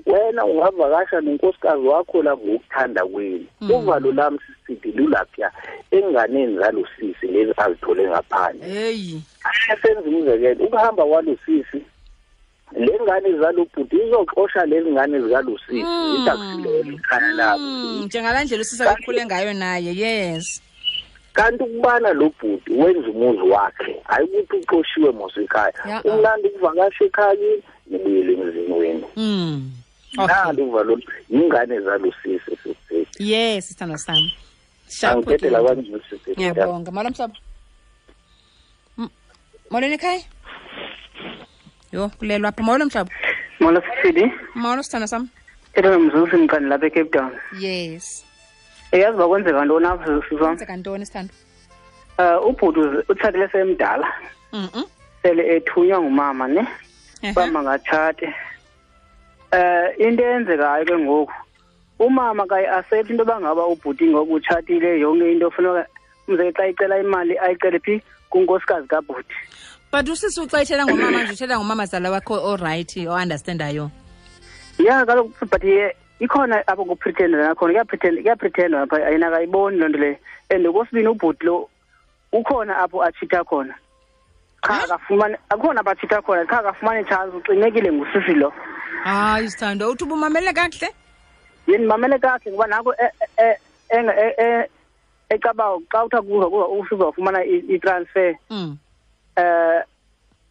wena ungavakasha nonkosikazi wakho la ngokuthanda kwenu. Uvalo lami sisidi lulapha enganeni zalosisi lezi azithole ngaphandle. Hey. Asenze umzekelo, ukuhamba kwalosisi, le ngane zalobhuti izoxosha lezi ngane zikalosisi, ithi akusilona ikhaya labo. Njengalaa ndlela usisa akhule ngayo naye, yes. Kanti ukubana lo bhuti wenza umuzi wakhe, hayi ukuthi uxoshiwe mos ekhaya. Umnandi ukuvakasha ekhaya kini, nibuyele emzini wenu. Nalo uvalo ingane zalosisi sisisi. Yes, sithando sami. Sharp. Angithethe la kanje sisisi. Ngiyabonga. Molo mhlobo. Molweni ekhaya. Yho, kulelwa apha. Molo mhlobo. Molo sisidi. Molo sithando sami. Thetha nomzuzu mqani lapha eCape Town. Yes. Eyazi uba kwenzeka ntoni apha, sisi wam? Kwenzeka ntoni, sithando? Ubhuti utshatile semdala. Sele ethunywa ngumama, ne? Uba mangatshate. Into eyenzekayo ke ngoku, umama kayi-accept into yoba ngaba ubhuti ngoku utshatile, yonke into funeka, umzekelo xa icela imali ayicele phi? Kunkosikazi kabhuti. But usisi uxa ethetha ngomama nje, uthetha ngomamazala wakho o-right, o-understandayo. Ya kaloku, but ikhona apho kupretenda nakhona, kuyapretendwa apha, yena akayiboni loo nto leyo. And okwesibini ubhuti lo ukhona apho atshita khona. Qha akafumani, akhona apho atshita khona, qha akafumani chance, uxinekile ngusisi lo. Hayi sithando, uthi ubumamele kakuhle? Yini ndimamele kakuhle ngoba nako ecaba xa kuthiwa kuza usizawufumana i-transfer.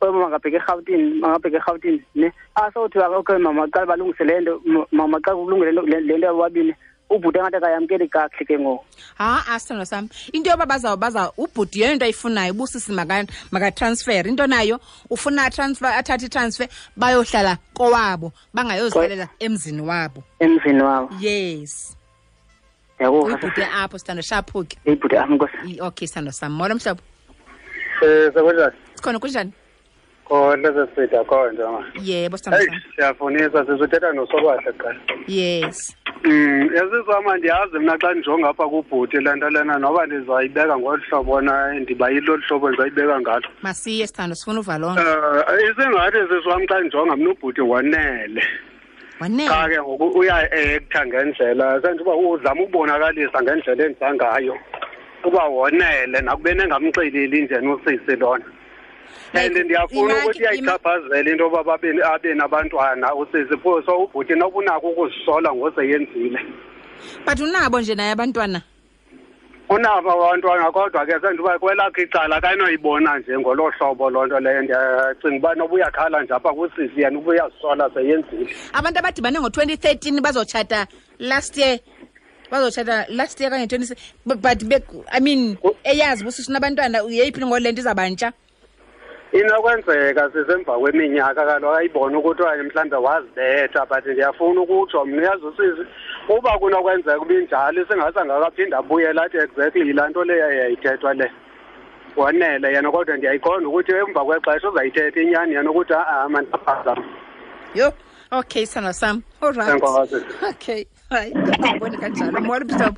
Mama ngabheka eRhawutini, ne? Asawuthi okay mama, qala balungise le nto, mama xa kulungele le nto yabobabini, ubhuti engathi akayamkeli kakuhle ke ngoku. Ha, sithando sam, into yoba baza ubhuti yeyona nto ayifunayo, ubusisi makatransfer. Into nayo ufuna transfer, athathe i-transfer bayohlala kowabo, bangayozihlalela emzini wabo. Emzini wabo. Yes. Ndiyakuva. Uyibhuti apho, sithando, shaphuke. Uyibhuti apho, nkosi. Okay, sithando sam. Molo mhlobo. Sekunjani? Sikhona, kunjani? Khona sesida khona ma. Yebo, sithando sam. Siyafunisa, sizothetha noSobahle kuqala. Yes. Yasizama ndiyazi mna xa ndijonga apha kubhuti le nto lena, noba ndizayibeka ngolu hlobo na, ndibayile olu hlobo ndizayibeka ngalo. Masiye sithando, sifuna uva loo nto. Isingathi sisi wam xa ndijonga mna ubhuti wanele. Wanele. Cha ke ngoku uya-acta ngendlela, senza uba uzama ukubonakalisa ngendlela enza ngayo. Uba wonele nakubeni engamxeleli nje nosisi lona. And ndiyafuna ukuthi iyayichaphazela into yoba abe nabantwana usisi, pho so ubhuti noba unako ukuzisola ngoseyenzile. But unabo nje naye abantwana? Unabo abantwana, kodwa ke senza uba kwelakhe icala akanoyibona nje ngolo hlobo loo nto leyo. Ndiyacinga uba noba uyakhala nje apha kusisi, yena uba uyazisola seyenzile. Abantu abadibane ngo-2013 bazotshata last year. Bazotshata last year kanye 20, but I mean, eyazi uba usisi unabantwana, yeyiphi ngole nto izabantsha? Inokwenzeka sisemva kweminyaka kaloku ayibona ukuthi okanye mhlawumbe wazibetha, but ndiyafuna ukutsho mna uyazi usisi uba kunokwenzeka uba injalo isingase angakaphinda abuyele athi exactly yilaa nto leyo yayithethwa le. Wanele yena, kodwa ndiyayiqonda ukuthi emva kwexesha uzayithetha inyani yena ukuthi ha-a mandiphazama. Yho, okay sithando sam. All right. Enkosi. Okay, hayi, ndibone kanjalo. Molo mhlobo.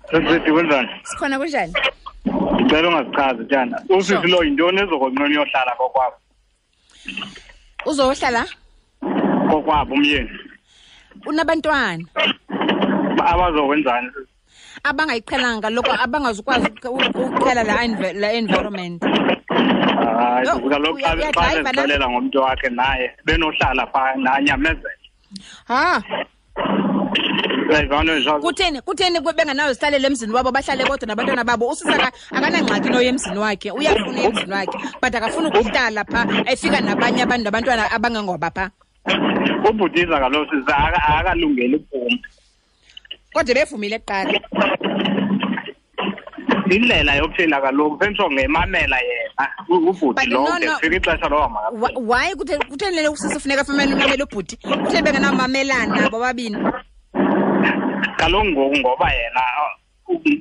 Sisithi kunjani? Sikhona, kunjani? Ndicela ungazichazi tyana. Usisi lo yintoni ezokonqena uyohlala kokwabo? Uzohlala? Kokwabo umyeni. Unabantwana. Abazokwenzani? Abangayiqhelanga kaloku, abangazukwazi ukuqhela la environment. Hayi, Yho, kaloku xa uyadrayiva na? bezixelela ngomntu wakhe naye benohlala phaa nanyamezela. Ha. Uyayivana nje? Kutheni bengenayo zihlalele emzini wabo, bahlale bodwa nabantwana babo? Usisi akanangxaki noya emzini wakhe, uyafuna emzini wakhe, but akafuni ukuhlala phaa efika nabanye abantu nabantwana abangengoba phaa. Ubhutiza kaloku sisi akalungeli ukuphuma. Kodwa bevumile kuqala. Indlela yokuphila kaloku sentsho ngemamela yena ubhuti But lo, no, de no. kufika ixesha loba makaphile. Why kutheni le usisi funeka afumane umamela ubhuti? Kutheni bengenawumamelana bobabini? Kaloku ngoku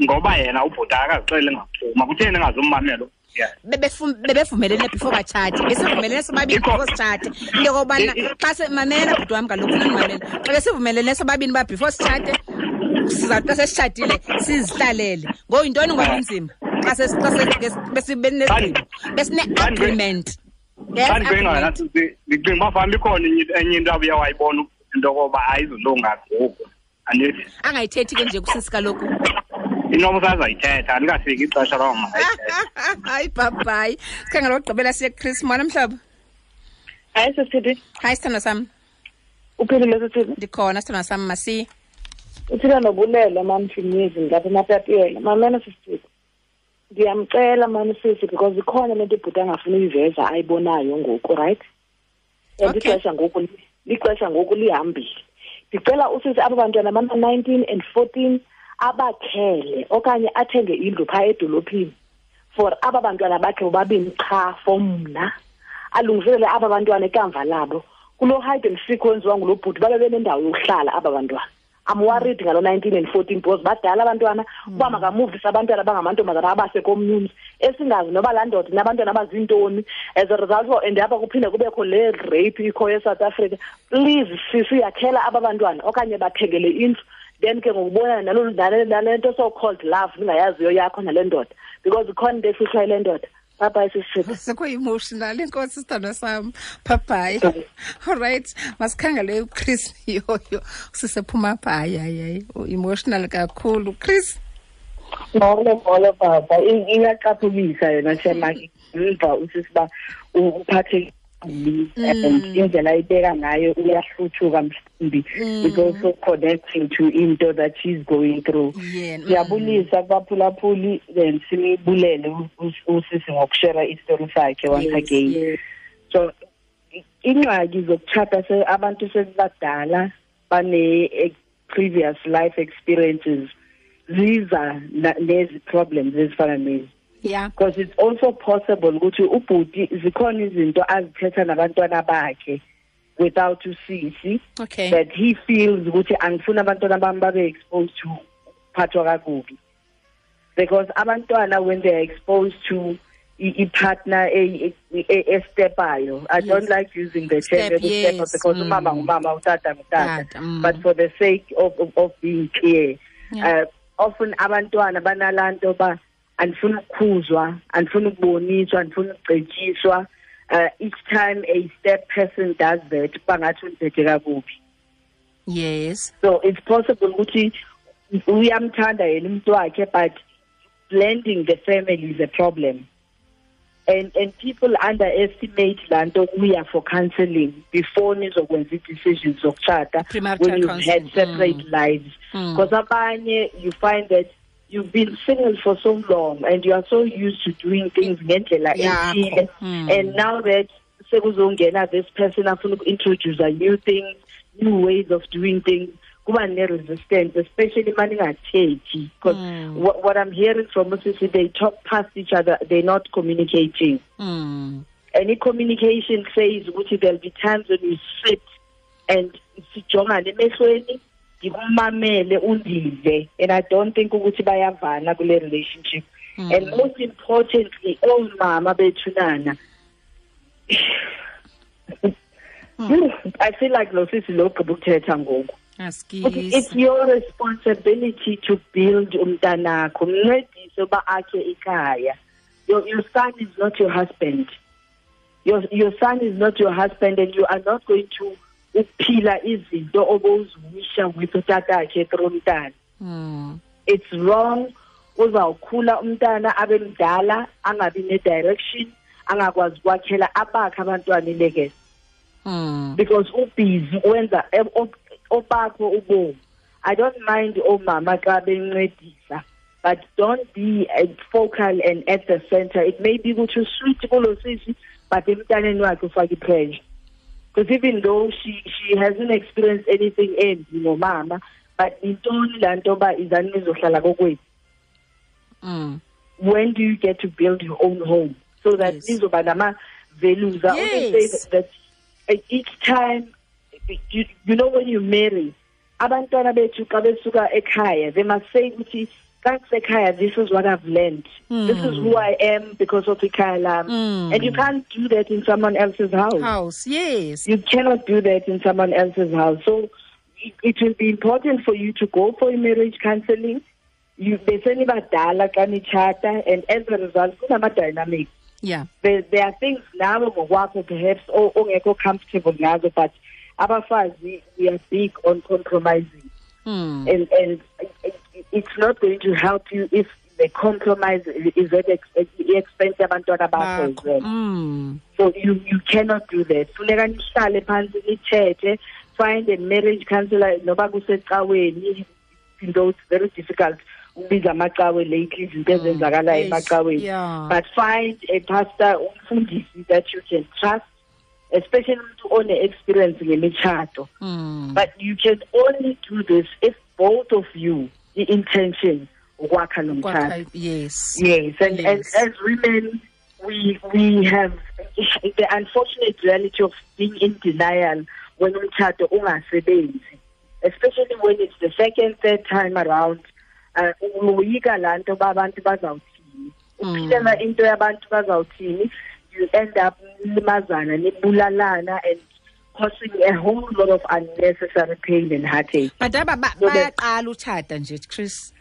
ngoba yena ubhuti akazixeli ngaphuma, kutheni engazummamela? Yeah. Bebevumelene before batshate, besivumelene sobabini before sitshate. Into yokobana xa mamela bhuti wam kaloku, funa ndimamele. Xa besivumelene sobabini uba before sitshate, sizawuthi xa sesitshatile sizihlalele. Ngoku yintoni ngoba inzima? Xa besibenesigqibo, besine-agreement. Yes, Xa ndicinga agreement. nathi ndicinga uba fanuba ikhona enye into abuye wayibona into yokoba ayizulunga ngoku. Andithi? Angayithethi ke nje kusisi kaloku. Inoba usazayithetha, alikafiki ixesha loba makayithethe. Hayi, bye-bye. Sikhangela okugqibela siye kuChris. Molo mhlobo. Hayi, sisithi. Hayi, sithandwa sam. Uphilile, sisithi? Ndikhona, sithandwa sam, masiye. Uthila nobulela, mam Finyezi, ngilapha eMatatiele. Mamela, sisithi. Ndiyamcela, mam sisi, because ikhona le nto ibhuti angafuni uyiveza ayibonayo ngoku, right? And lixesha ngoku lihambile. Ndicela usisi aba bantwana bama-19 and 14 abakhele okanye athenge indlu phaa edolophini for aba bantwana bakhe bobabini qha for mna. Alungiselele aba bantwana ikamva labo. Kuloo hide and seek wenziwa ngulo bhuti babe benendawo yokuhlala aba bantwana. I'm worried ngalo 19 and 14 because badala abantwana uba makamuvise abantwana abangamantombazana abase komnye umzi esingazi noba laa ndoda inabantwana abazintoni. As a result, and apha kuphinde kubekho le rape ikhoyo eSouth Africa. Please sisi, yakhela aba bantwana okanye bathengele indlu, then ke ngokubonana nale nto so called love ningayaziyo yakho nale ndoda, because ikhona into efihlwa yile ndoda. Bye bye sisi. Sekho-emotional, inkosi sithandwa sam. Bye bye. All right, masikhangele uChris yoyo sisephuma pha. Hayi hayi, emotional kakhulu Chris. Molo molo baba, iyacaphukisa yona shema ngiva usisiba uphathe and indlela ayibeka ngayo uyahluthuka mhlawumbi is also connecting to into that she's going through. Siyabulisa kubaphulaphuli then simibulele usisi ngokushare isitori sakhe once again. So ingxaki zokutshata abantu sebadala bane previous life experiences ziza nezi problems ezifana nezi. Yeah. Because it's also possible ukuthi ubhuti zikhona izinto azithetha nabantwana bakhe without usisi. Okay. That he feels ukuthi angifuna abantwana bami babe exposed to phathwa kakubi. Because abantwana when they are exposed to a partner a stepayo. I don't like using the term step because umama ngumama utata ngutata. But for the sake of being clear, often abantwana banalanto ba andifuna ukukhuzwa, andifuna ukuboniswa, andifuna ukucetyiswa. Each time a step person does that, bangathi undiphethe kakubi. Yes. So it's possible ukuthi uyamthanda yena umuntu wakhe, but blending the family is a problem. And people underestimate lanto kuya for counseling before nizokwenza decisions zokutshata when you've had separate lives. Because abanye you find that you've been single for so long and you are so used to doing things ngendlela ethile, and now that sekuzongena this person afuna uku-introduce new things, new ways of doing things, kuba ne-resistance, especially maningathethi, because what I'm hearing from usisi, they talk past each other, they're not communicating. Any communication says ukuthi there'll be times when you sit and sijongane emehlweni, ndikumamele undive, and I don't think ukuthi bayavana kule relationship. And most importantly, omama bethunana, I feel like lo sisi lo gqiba ukuthetha ngoku. It's your responsibility to build umntanakho, mncedise uba akhe ikhaya. Your son is not your husband. Your son is not your husband, and you are not going to uphila izinto oboziwisha with utatakhe through umntana. It's wrong. Uzawukhula umntana abe mdala, angabi ne-direction, angakwazi ukwakhela abakhe abantwana ilekese. Because ubhizi wenza obakho ubomi. I don't mind omama xa bencedisa, but don't be focal and at the center. It may be ukuthi sweet kulo sisi, but emntaneni wakhe ufake i-pressure. Because even though she hasn't experienced anything embi nomama, but intoni laa nto ba izani nizohlala kokwethu. When do you get to build your own home? So that nizoba nama-values. I always say that each time, you know, when you marry, abantwana bethu xa besuka ekhaya, they must say ukuthi ekhaya, this is what I've learned. This is who I am because of ikhaya lam. And you can't do that in someone else's house. Yes. You cannot do that in someone else's house. So it will be important for you to go for marriage counseling. You besenibadala xa nitshata, and as a result, kunama-dynamics. Yeah. There are things now ngokwakho perhaps ongekho comfortable ngazo, but abafazi, we are big on compromising. And it's not going to help you if the compromise is at the expense yabantwana bakho as well. So you cannot do that. Funeka nihlale phansi nithethe, find a marriage counselor noba kusecaweni, though it's very difficult ukubiza amacawe lately, izinto ezenzakalayo emacaweni. But find a pastor, umfundisi that you can trust, especially umuntu one-experience ngemitshato. But you can only do this if both of you, the intention, ukwakha lo mtshato. Yes. Yes. And as women, we have the unfortunate reality of being in denial when umtshato ungasebenzi. Especially when it's the second, third time around, uyoyika laa nto uba abantu bazawuthini. Uphilela into yabantu bazawuthini, you end up nilimazana, nibulalana and causing a whole lot of unnecessary pain and heartache. But aba bayaqala utshata nje, Chris.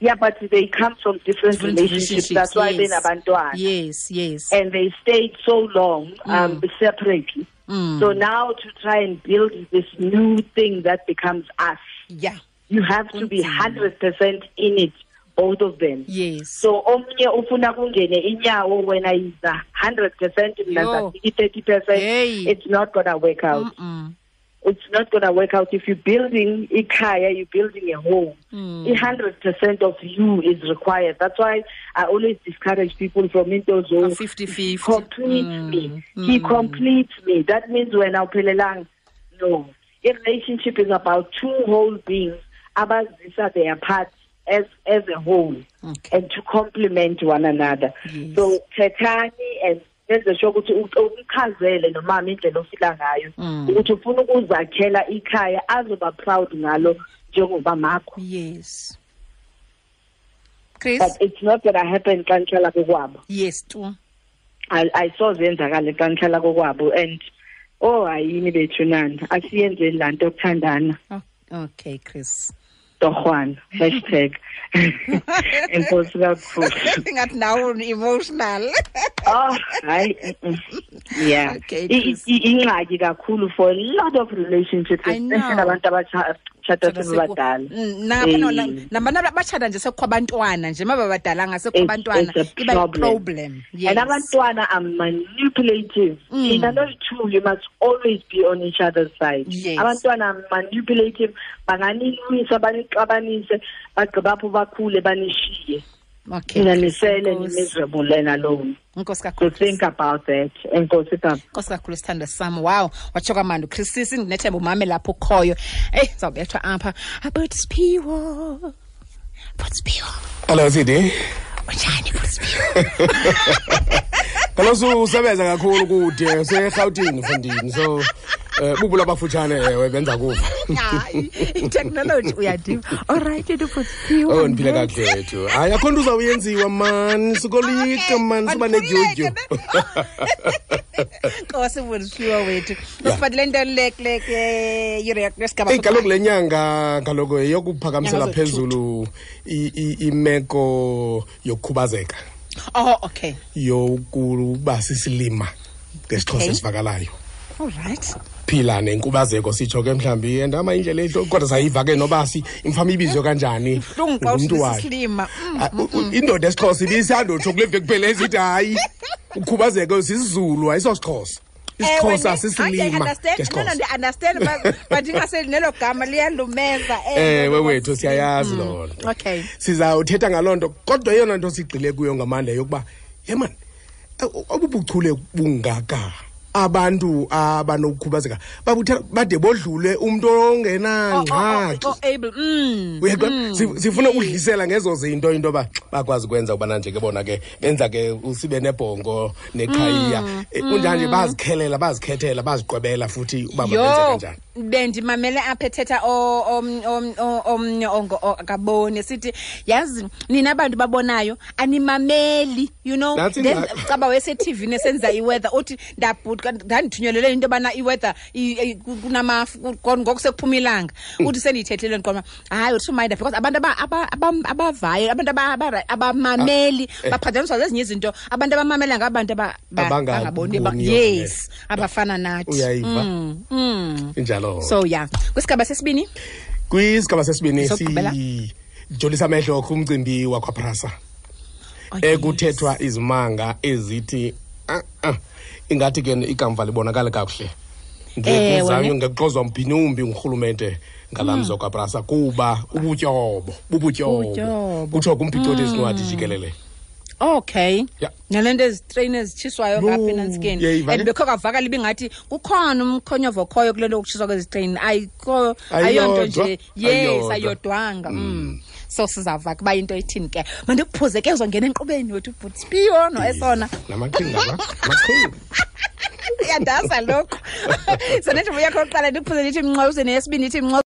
Yeah, but they come from different relationships. That's why benabantwana. Yes. And they stayed so long separately. So now to try and build this new thing that becomes us. Yeah. You have to be 100% in it, both of them. Yes. So omnye ufuna kungene inyawo wena is 100%, mina 30%. Hey. It's not gonna work out. It's not gonna work out. If you're building ikhaya, you're building a home. 100% of you is required. That's why I always discourage people from into zone. 50-50. Complete me. He completes me. That means when awuphelelanga. No. A relationship is about two whole beings. Abazisa their parts as a whole, and to complement one another. Yes. So thethani and nenze sure ukuthi umchazele nomama indlela ofila ngayo, ukuthi ufuna ukuzakhela ikhaya azoba proud ngalo njengoba makho. Yes. Chris? But it's not gonna happen xa nihlala kokwabo. Yes, tu. I saw zenzakale xa nihlala kokwabo and oh ayini bethu nani, asiyenzeni laa nto yokuthandana. Okay, Chris. Torhwana, hashtag. Enkosi kakhulu. Ingathi nawe emotional. Oh, hayi. Yeah. Okay, Chris. Ingxaki kakhulu for a lot of relationships, especially abantu abatshata sebebadala. Nabantu abatshata nje sekukho abantwana nje, mababadalanga sekukho abantwana, iba problem. Yes. And abantwana are manipulative. In those two, you must always be on each other's side. Yes. Abantwana are manipulative, banganilwisa, banixabanise, bagqiba apho bakhule banishiye. Okay. Nisele miserable and alone. Nkosi kakhulu. So think about that. Enkosi kakhulu. Nkosi kakhulu sithandwa sami. Wow, watsho kamandi Chris, sisi ndinethemba umame lapho ukhoyo. Hey, sizawubethwa apha. About Siphiwo. About Siphiwo. Hello CD. Unjani About Siphiwo? Kaloku usebenza kakhulu kude useRhawutini mfundini. So bubula abafutshane ewe benza kuva. Hayi, i-technology uyadiva. All right, About Siphiwo. Oh, ndiphila kakuhle wethu. Hayi, akho nto uzawuyenziwa man, sukolika man, suba nedyudyu. Nkosi Siphiwo wethu. Usiphathele nto le yure yesigaba. Hey, kaloku le nyanga kaloku yeyokuphakamisela phezulu imeko yokukhubazeka. Oh, okay. Yokuba sisilima ngesiXhosa esivakalayo. All right. Phila nenkubazeko sitsho ke mhlambi endama indlela ehlo kodwa sayiva ke noba si imfama ibizwe kanjani ngumntu wakhe. Indoda esiXhosa ibisandotsho kule veki kuphela esithi hayi ukhubazeko sisiZulu ayisosixhosa. isiXhosa sisilima. No, understand but ingase nelo gama liyalumeza. Ewe wethu siyayazi loo nto. Okay. Sizawuthetha ngaloo nto kodwa eyona nto sigxile kuyo ngamandla yokuba yemani obubuchule bungaka abantu abanokukhubazeka babuthe bade bodlule umuntu ongenangxaki. Able. Sifuna ukudlisela ngezo zinto into ba bakwazi kwenza ubana nje ke bona ke benza ke usibe nebhongo neqhayiya kunjanje bazikhelela bazikhethela baziqwebela futhi uba benze kanjani. Bendimamele apha ethetha omnye akaboni sithi yazi nina abantu babonayo animameli, you know, then caba wese TV nesenza iweather uthi ndabhutka ndandithunyelele into bana iweather kunamafu ngoku sekuphuma ilanga uthi sendiyithethele ndiqoma hayi uthi mind because abantu abavayo abantu abamameli baphathaniswa zezinye izinto abantu abamamela ngabantu abangaboni yes abafana nathi uyayiva injalo. So yeah, kwisigaba sesibini sijolisa amehlo kumcimbi wakwaPrasa ekuthethwa izimanga ezithi ingathi ke ikamva libonakala kakuhle ngekuzanyo ngekuxozwa mphinumbi ngurhulumente ngalamzi wakwaPrasa kuba ubutyobo bubutyobo kutsho kumphicothi ezincwadi jikelele. Okay. Yeah. Nalento ezitrain ezitshiswayo ngapha enantsikeni. And bekho kavakala ibingathi kukhona umkhonyovo okhoyo kule nto yokutshiswa kwezitrain. Ayikho ayonto nje. Yes, ayodwanga. So sizava kuba into ithini ke. Mandikuphuze ke uzongena enkqubeni wethu ubhuti no esona. Namaqhinga la. Amaqhinga. Iyandaza lokho. So nethi yakho oqala ndikuphuze ndithi mnqo uze neyesibini ithi mnqo.